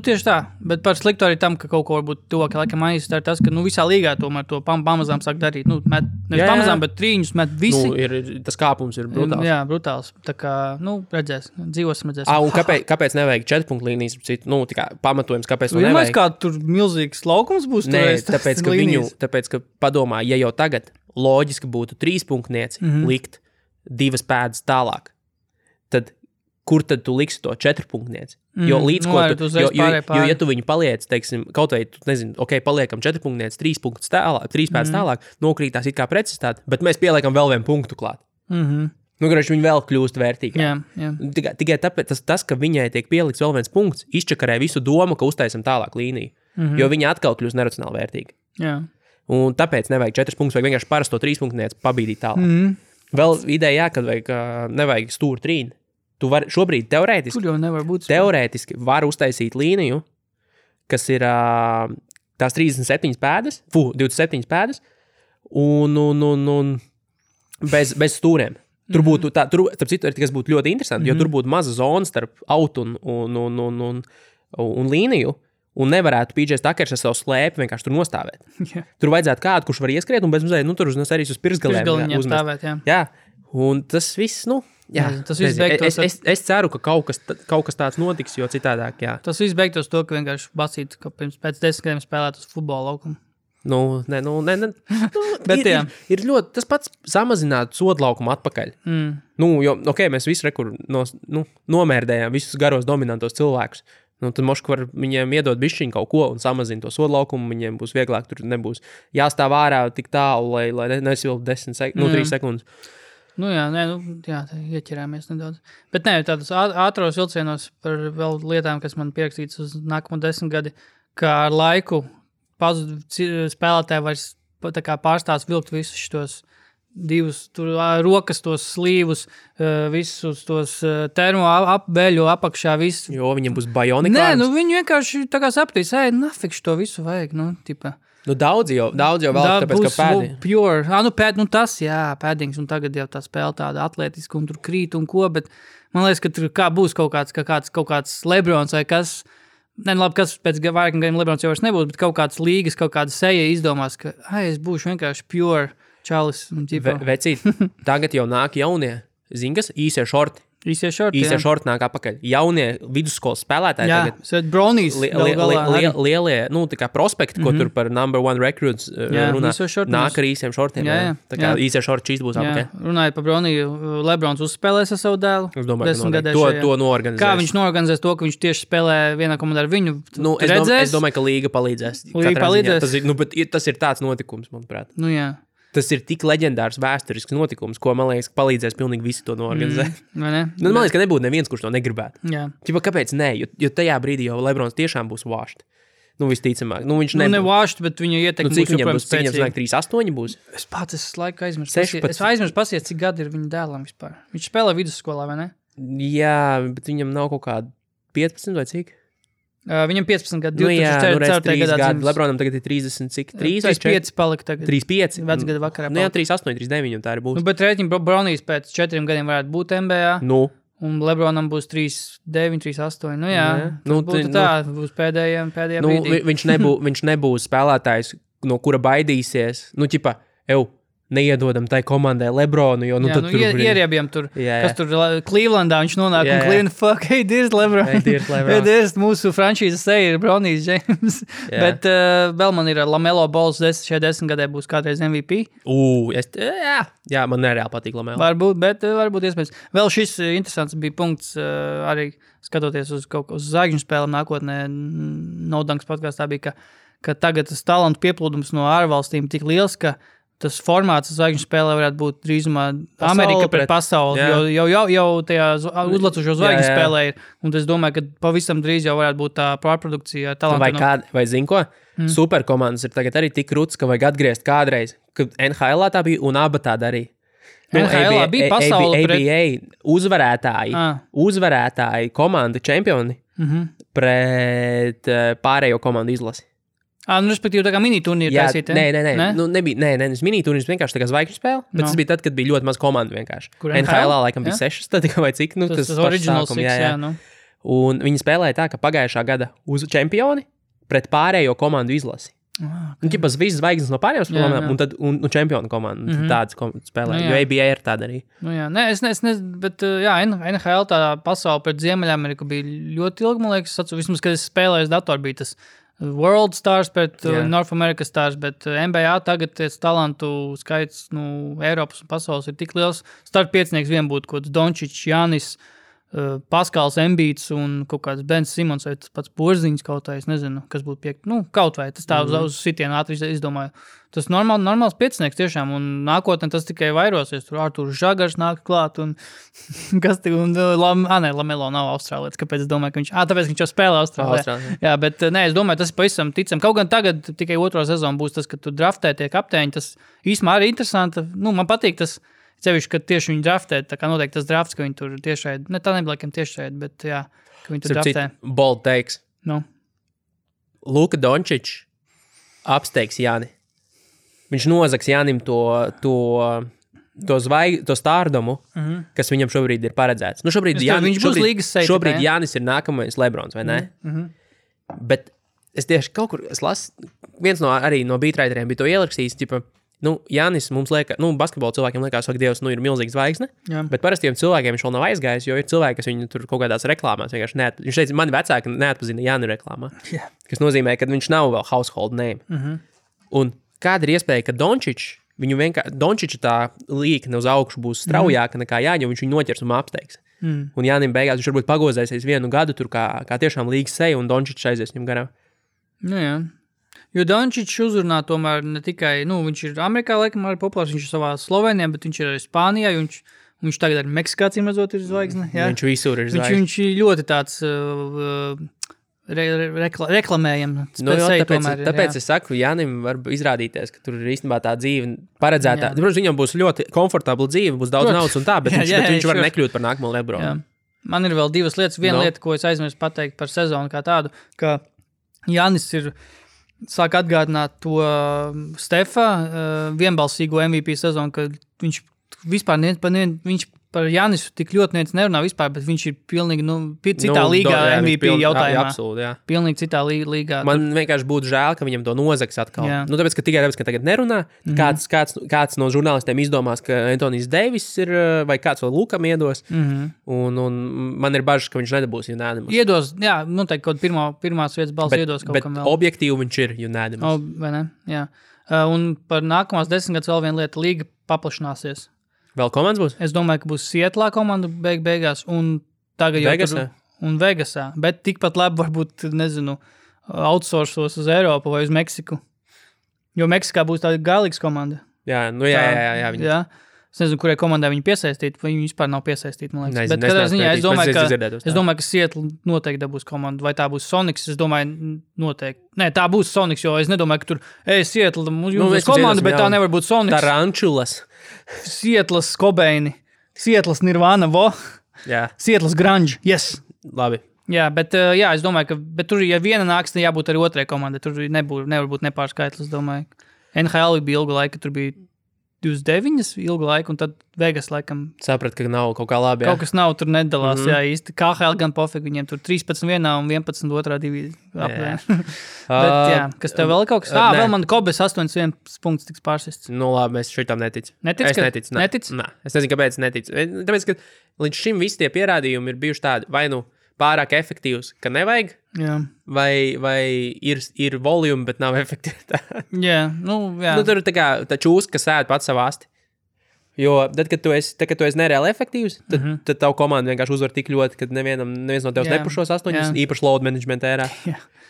Tieši tā, bet par sliktu arī tam, ka kaut ko varbūt tuvāk laikam mainīs, tā ir tas, ka visā līgā tomēr to pamazām sāk darīt. Pamazām, bet trīņus met visi. Tas kāpums ir brutāls. Jā, brutāls. Tā kā, redzēs, dzīvosim, redzēs. Un kāpēc nevajag 4 punktu līnijas? Pamatojums, kāpēc to nevajag? Kā tur milzīgs laukums būs? Nē, tāpēc, ka padomā, ja jau tagad loģiski būtu 3 punktnieci likt 2 pēdas tālāk, tad kur tad tu liksi to 4 punktnieci? Jo līdz ko ja tu viņu paliec, teiksim, kaut vai, paliekam 4 punktnieci, 3 punktus tālāk, 3 pēdas tālāk, nokrītās it kā precizitāte, bet mēs pieliekam vēl 1 punktu klāt. Viņi vēl kļūst vērtīgāk. Tikai tāpēc tas, ka viņai tiek pielikts vēl 1 punkts, izčakarē visu domu, ka uztaisam tālāk līniju, jo viņa atkal kļūst neracionāli vērtīga. Jā. Un tāpēc nevajag 4 punktus, vajag vienkārši parasto 3 punktnieci pabīdīt tālāk. Vēl ideja, kad nevajag stūru trīni. Tu vari šobrīd teorētiski var uztaisīt līniju, kas ir tās 37 pēdas, 27 pēdas, un bez stūriem. Tur būtu starp citu, kas būtu ļoti interesanti, jo tur būtu maza zona starp autu un līniju, un nevarētu PJ Tuckers ar savu slēpi vienkārši tur nostāvēt. Yeah. Tur vajadzētu kādu, kurš var ieskriet, un bez mazliet, tur uz pirksgalēm uzmest. Jā, un tas viss, Jā, tas viss beigtos. Es ceru, ka kaut kas tāds notiks, jo citādāk, jā. Tas viss beigtos to, ka vienkārši basīt, ka pēc 10 gadiem spēlēt uz futbola laukumu. Nē. Bet ir ļoti, tas pats samazināt sodu laukumu atpakaļ. Jo, mēs visi nomērdējām visus garos dominantos cilvēkus. Tad moški var viņiem iedot bišķiņu kaut ko un samazina to sodu laukumu, viņiem būs vieglāk, tur nebūs jāstāv ārā tik tālu, lai nesilp 3 sekundes. Ieķerāmies nedaudz. Bet tādos ātros vilcienos par vēl lietām, kas man pierakstīts uz nākamo 10 gadi, kā ar laiku spēlētāji vairs pārstās vilkt visus šitos divus rokas, tos slīvus, visus tos termo apbeļu apakšā, visu. Jo viņiem būs bionika arms. Viņi vienkārši tā kā sapratīs, nafikš to visu vajag, tipa. Daudz jau vēl, tāpēc, ka pēdi. Pure. Tas, pēdings, un tagad jau tā spēle tāda atletiska, un tur krīt un ko, bet man liekas, ka tur būs kaut kāds Lebrons vai kas, kas pēc vairākiem gadiem Lebrons jau vairs nebūs, bet kaut kāds līgas, kaut kāda seja izdomās, ka, es būšu vienkārši pure čalis. Vecīt, tagad jau nāk jaunie, zinkas, īsie šorti. Īsie šorti nāk apakaļ. Jaunie vidusskolas spēlētāji tagad. Brownies lielie, tā kā prospekti, ko tur par number 1 recruits runā, nāk ar īsiem šortiem. Tā kā īsie šorti čīs būs apakaļ. Runājot par Browniju, Lebrons uzspēlēs ar savu dēlu. Es domāju, ka to noorganizēs. Kā viņš noorganizēs to, ka viņš tieši spēlē vienā komandā ar viņu? Es domāju, ka līga palīdzēs. Tas ir tāds notikums, manuprāt. Tas ir tik leģendārs vēsturisks notikums, ko, man liekas, palīdzēs pilnīgi visi to noorganizēt. Man liekas, ka nebūtu neviens, kurš to negribētu. Kāpēc ne? Jo tajā brīdī jau Lebrons tiešām būs vāšt. Visticamāk. Viņš ne vāšt, bet viņa ietekme būs joprojām spēcīga. Cik viņam 3-8 būs? Es pats laiku aizmirsu. Es aizmirsu pasies, cik gadi ir viņa dēlam vispār. Viņš spēlē vidusskolā, vai ne? Jā, bet viņam nav kaut kādi 15 vai cik? Viņam 15 gadu, 2004. gadā. Lebronam tagad ir 30, cik? 35 palika tagad. 35? Vecgada vakarā. 38, 39 tā arī būs. Bet rēķini Brownijs pēc 4 gadiem varētu būt NBA. Un Lebronam būs 39, 38. Būs pēdējā brīdī. Viņš nebūs spēlētājs, no kura baidīsies. Neiedodam tai komandai Lebronu, jo tad tur ieriebjam tur, kas tur Clevelandā viņš nonāk un Cleveland, here's LeBron. Here's mūsu franšīzes seja ir Bronijs James. Bet vēl man ir Lamelo Balls šajā 10 gadē būs kādreiz MVP. Jā, man nereāli patīk Lamelo. Varbūt iespējams. Vēl šis interesants bija punkts arī skatoties uz zvaigžņu spēlēm nākotnē. No Dunks podkastā bija, ka tagad tas talantu pieplūdums no ārvalstīm tik liels, ka tas formāts zvaigžņu spēlē varētu būt drīzumā Amerika pret pasauli, jau tajā uzlacošo zvaigžņu spēlē ir. Un es domāju, ka pavisam drīz jau varētu būt tā pārprodukcija talantu. Vai zini ko? Superkomandas ir tagad arī tik krūts, ka vajag atgriezt kādreiz, kad NHL tā bija un aba tā darīja. NHL bija pasauli ABA uzvarētāji komanda čempioni pret pārējo komandu izlasi. Respektīvi, tā kā mini-turnīri taisīt, Nē, mini-turnīrs vienkārši tā kā zvaigžņu spēle, bet tas bija tad, kad bija ļoti maz komandu vienkārši. NHL laikam bija 6, tad tikai vai cik, tas original sākums, 6, Un viņi spēlēja tā, ka pagājušā gada uz čempioni pret pārējo komandu izlasi. Ķipas visas zvaigznes no pārējām spēlēm un čempionu komandu. Tādas spēlē, jo ABA ir tāda arī. Bet NHL tā pasauli pret Ziemeļameriku bija ļoti ilgi, man liekas, vismaz, kad es spēlēju datoru, bija tas World Stars pret North America Stars, bet NBA tagad talantu skaits Eiropas un pasaules ir tik liels. Startpiecinieks vien būtu kaut kāds Dončičs, Jānis, Paskals Embīts un kaut kāds Bens Simons vai tas pats Porziņš kaut vai, es nezinu, kas būtu kaut vai, tas tā uz sitienu ātri izdomāju. Tas normāls piecinieks tiešām, un nākotnē tas tikai vairosies. Tur Arturs Žagars nāk klāt, un Lamelo nav austrālietis, kāpēc es domāju, ka viņš, tāpēc viņš jau spēlē Austrālijā. Jā, bet es domāju, tas ir pavisam ticam. Kaut gan tagad tikai otro sezonu būs tas, ka tu draftē tie kapteiņi, tas īsumā arī interesanti. Man patīk tas, cevišķi, ka tieši viņi draftē, tā kā noteikti tas drafts, ka viņi tur tiešraid, ne tā nebija tiešraid, bet jā, ka viņi tur draftē. Bold takes. Luka Dončičs apsteigs Jāni. Viņš nozags Jānim to stārdumu, kas viņam šobrīd ir paredzēts. Šobrīd Jānis ir nākamais Lebrons, vai ne? Bet es tieši kaut kur, viens no beatwriteriem bija to ierakstījis, Jānis mums liekas, basketbola cilvēkiem liekas, ka Dievs ir milzīgs zvaigzne, bet parastiem cilvēkiem viņš vēl nav aizgājis, jo ir cilvēki, kas viņu tur kaut kādās reklāmās vienkārši viņš teica, mani vecāki neatpazina Jāni reklāmā, kas nozīmē, ka viņš nav vēl household name. Un kāda ir iespēja, ka Dončiča tā līkne uz augšu būs straujāka nekā Jāņa, jo viņš viņu noķers un apsteigs. Un Jānim beigās viņš varbūt pagozēsies 1 gadu tur kā tiešām līgas seja un Dončičs aizies viņam garām. Jā. Jo Dončičs uzrunā tomēr ne tikai, viņš ir Amerikā laikam arī populārs, viņš ir savā Slovenijā, bet viņš ir arī Spānijā, viņš tagad arī Meksikā cīmredzot ir zvaigzne. Jā? Viņš visur ir zvaigzne. Viņš ir ļoti tāds reklamējams. Tāpēc es saku, Jānim var izrādīties, ka tur ir īstenībā tā dzīve paredzētā. Protams, viņam būs ļoti komfortabla dzīve, būs daudz naudas un tā, bet viņš var nekļūt par nākamo Lebronu. Jā. Man ir vēl 2 lietas. Viena lieta, ko es aizmirsu pateikt par sezonu kā tādu, ka Jānis sāk atgādināt to Stefa vienbalsīgo MVP sezonu, ka viņš vispār viņš par Jānisu tik ļoti nerunā vispār, bet viņš ir pilnīgi citā līgā MVP jautājumā. Absolūti, jā. Pilnīgi citā līgā. Man vienkārši būtu žēl, ka viņam to nozags atkal. Tāpēc, ka tagad nerunā, kāds no žurnālistiem izdomās, ka Antonijs Deivis ir, vai kāds vēl Lukam iedos, un man ir bažas, ka viņš nedabūs unanimous. Iedos, jā, noteikti kaut pirmās vietas balss iedos kaut kam vēl. Bet objektīvi viņš ir unanimous. Vai ne? Jā. Un par nākamās 10 gadus vēl viena lieta, līga paplašināsies. Vēl komandas būs? Es domāju, ka būs Sietlā komanda beigās un tagad Vegasā? Un Vegasā, bet tikpat labi varbūt, outsourcos uz Eiropu vai uz Meksiku. Jo Meksikā būs tāda galīgas komanda. Jā. Jā. Es nezinu, kurai komandai viņi piesaistīt, vai viņi vispār nav piesaistīti, man liekas. Bet katrā ziņā es domāju, ka Seattle noteikti dabūs komandu, vai tā būs Sonics, es domāju, noteikti. Nē, tā būs Sonics, jo es nedomāju, ka tur, Seattle, mums būs komanda, bet tā nevar būt Sonics. Tarančulas. Seattles Kobeini, Seattles Nirvana, Seattles Grunge, yes. Labi. Jā, bet es domāju, ka tur, ja viena nāks, tad jābūt arī otrai komandai, tur nevar būt nepārskaitlis, domāju. NHL bija ilgu laiku, tur bija 29 ilgu laiku, un tad Vegas laikam... Saprat, ka nav kaut kā labi, jā. Kaut kas nav, tur nedalās, jā, īsti. KHL gan pofīgi, viņiem tur 13 vienā un 11 otrā divīzija. Bet, jā, kas tev vēl kaut kas? Vēl man Kobes 81 punkts tiks pārsists. Labi, es šitam neticu. Es neticu. Nē. Es nezinu, kāpēc neticu. Tāpēc, ka līdz šim visi tie pierādījumi ir bijuši tādi, vai pārāk efektīvs, ka nevajag, vai ir volume, bet nav efektivitāte. Jā. Tur ir tā čūska, kas ēd pats savu asti. Jo tad, kad tu esi nereāli efektīvs, tad tavu komandu vienkārši uzvar tik ļoti, ka neviens no tevis nepušos 8, īpaši load management ērā.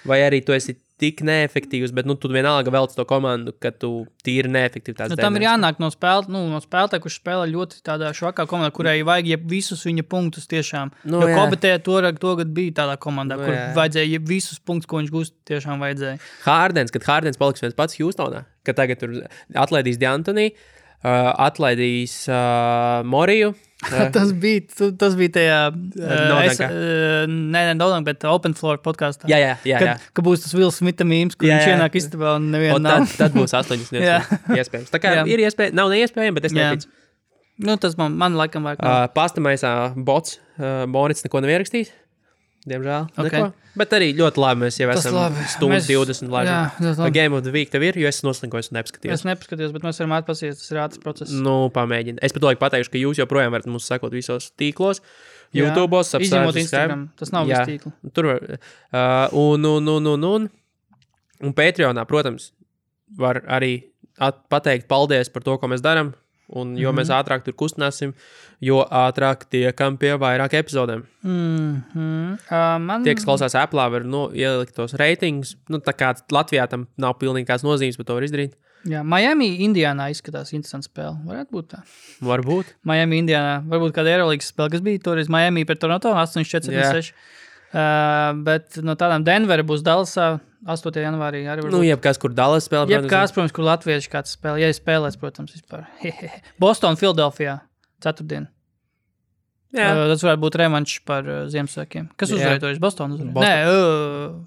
Vai arī tu esi tik neefektīvs, bet tu vienalga velc to komandu, ka tu tīri neefektivitātes. Tam ir jānāk no spēlētāja, kurš spēlē ļoti tādā švakā komandā, kurai vajag visus viņa punktus tiešām. Jo Kobetē togad bija tādā komandā, kur vajadzēja visus punktus, ko viņš gūst, tiešām vajadzēja. Kad Hardens paliks viens pats Houstonā, kad tagad tur atlaidīs D'Antoni, atlaidīs Moriju. tas bija tajā Nodank, bet Open Floor podkastā. Jā. Ka būs tas Will Smitha mīms, kur viņš ienāk istabā un neviena nav. Tad būs 8 iespējams. Tā kā ir iespēja, nav neiespējami, bet es neticu. Tas man laikam vajag. Pastamaisā bots, Morits neko nav ierakstījis. Diemžēl. Okay. Bet arī ļoti labi mēs jau esam stundu 20 labi. Game of the Week tev ir, jo es noslinkojos un nepaskatījos. Es nepaskatījos, bet mēs varam atpasties, tas ir ātrs process. Pamēģini. Es pat pateikšu, ka jūs joprojām varat mums sekot visos tīklos. YouTube'os, izņemot Instagram. Tas nav viss tīkli. Tur var. Un Patreonā, protams, var arī pateikt paldies par to, ko mēs daram. Un jo mēs ātrāk tur kustināsim, jo ātrāk tiekam pie vairāk epizodēm. Tie, kas klausās Apple'ā, var ielikt tos reitingus. Tā kā Latvijā tam nav pilnīgi kāds nozīmes, bet to var izdarīt. Jā, Miami, Indiānā izskatās interesants spēle. Varētu būt tā. Varbūt. Miami, Indiānā. Varbūt kāda Eurolīgas spēle, kas bija toreiz Miami pret Toronto 8-4-6. Bet no tādām Denvera būs Dallasā 8. janvārī arī varbūt. Jebkās, kur Dallas spēlē. Jebkās, protams, kur latvieši kāds spēlē. Ja spēlēs, protams, vispār. Boston, Philadelphia, 4. Tas varētu būt revanšs par Ziemassvētkiem. Kas uzvarēja toreiz? Boston uzvarēja? Nē,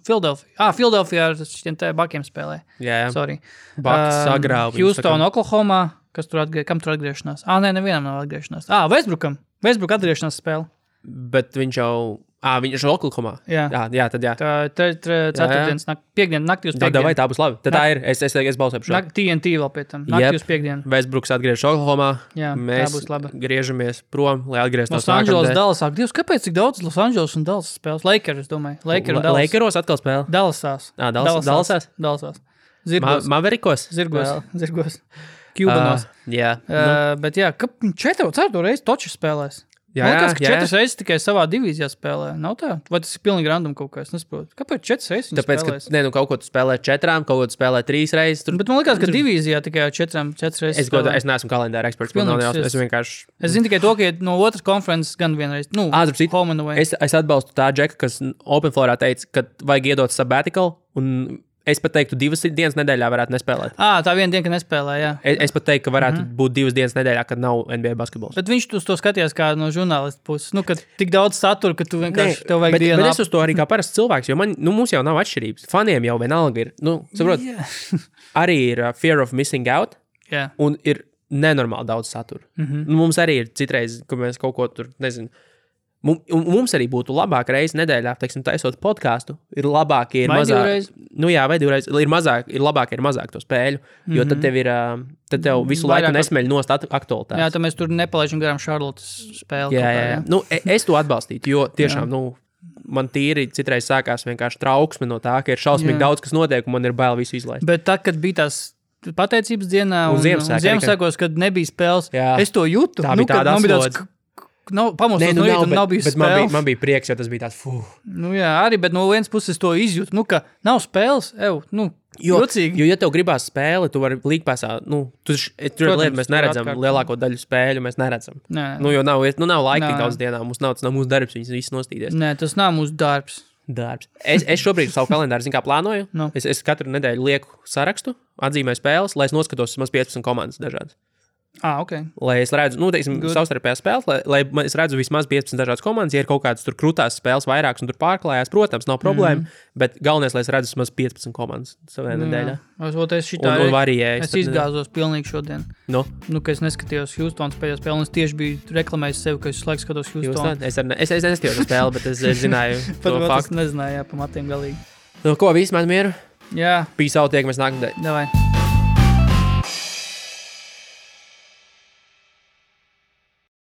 Philadelphia. Philadelphia ar šitiem te Bakiem spēlē. Jā. Sorry. Baks sagrāva. Houston, Oklahoma. Kam tur atgriešanās? Nevienam nav atgriešanās. Westbrook atgriešanās spēle. Bet viņš jau Viņš ir Oklahomā. Jā, tad jā. Tā ceturtdienas, piekdienas naktī uz piekdienu. Vai tā būs labi? Tad tā ir. Es balsoju par šo. TNT vēl pie tam. Naktī uz piekdienu. Westbrooks atgriežas Oklahomā. Jā, mēs tā būs laba. Griežamies prom, lai atgrieztos Los Angeles, Dallasā. Dievs, kāpēc tik daudz Los Angeles un Dallas spēles? Lakers, es domāju. Lakeros atkal spēle? Dallasās. Dallasās. Zirgos. Maverikos? Zirgos. Kjubanos. Jā. Bet jā, 4 reizi toči spēlēs. Man liekas, ka 4 reizes tikai savā divīzijā spēlē. Nav tā? Vai tas ir pilnīgi random kaut kā? Es nesaprotu. Kāpēc 4 reizes viņi spēlēs? Tāpēc, ka kaut ko tu spēlē 4, kaut ko tu spēlē 3 reizes. Bet man liekas, ka divīzijā tikai 4 reizes spēlē. Es neesmu kalendāra eksperts. Es zinu tikai to, ka no otras konferences gan vienreiz. Home and away. Es atbalstu tā Džeka, kas Open Floorā teica, ka vajag iedot sabbatical un es pat teiktu, 2 dienas nedēļā varētu nespēlēt. Tā viena diena, ka nespēlē, jā. Es pat teiktu, ka varētu būt 2 dienas nedēļā, kad nav NBA basketbols. Bet viņš to skatījās kā no žurnālista puses. Ka tik daudz satura, ka tu vienkārši tev vajag dienu. Bet es uz to arī kā parasts cilvēks, jo mums jau nav atšķirības. Faniem jau vienalga ir, saprot, arī ir fear of missing out un ir nenormāli daudz satura. Mums arī ir citreiz, ka mēs kaut ko tur, nezinu, mums arī būtu labāk reizi nedēļā, teiksim, taisot podcastu, ir labāk, ir mazāk. Vai divreiz. Ir labāk, ir mazāk to spēļu, jo tad tev visu laiku nesmeļ nost aktualitātes. Jā, tad mēs tur nepalaižam garām Charlottes spēli. Jā. Es to atbalstītu, jo tiešām, man tīri citreiz sākās vienkārši trauksme no tā, ka ir šausmīgi daudz, kas notiek, un man ir bail visu izlaist. Bet tad, kad bija tās pateicības dienā un Ziemassvētkos, kad nebija spēles, es to jūtu. Tā bija tāda atslodze. Pamostos no rīta un nav bijis spēles. Man bija prieks, jo tas bija tāds, arī, bet no vienas puses to izjūtu, ka nav spēles, jocīgi. Jo, ja tev gribās spēli, tu vari līgpāsā, tur lieta mēs neredzam, lielāko daļu spēļu mēs neredzam. Jo nav laika tik daudz dienā, mums nav mūsu darbs, viņas viss nostīdies. Nē, tas nav mūsu darbs. Es šobrīd savu kalendāru, plānoju. Es katru nedēļu lieku sarakstu, atzīmēju spēles, lai es noskatos maz 15 komandas dažādas. Okay. Lai es redzu, savstarpējās spēles, lai es redzu vismaz 15 dažādas komandas, ja ir kaut kādas tur krūtās spēles vairākas un tur pārklājās, protams, nav problēma, bet galvenais, lai es redzu vismaz 15 komandas savā nedēļā. Un variēju. Es izgāzos pilnīgi šodien. Ka es neskatījos Houstonas pēdējā spēli, un es tieši biju reklamējis sevi, ka es laiku skatos Houstonu. Es neskatījos spēli, bet es zināju to faktu. Es nezināju, pa matiem galīgi. Ko, viss man mieru? Jā. Peace out, tiekamies nākamdēļ. Davai.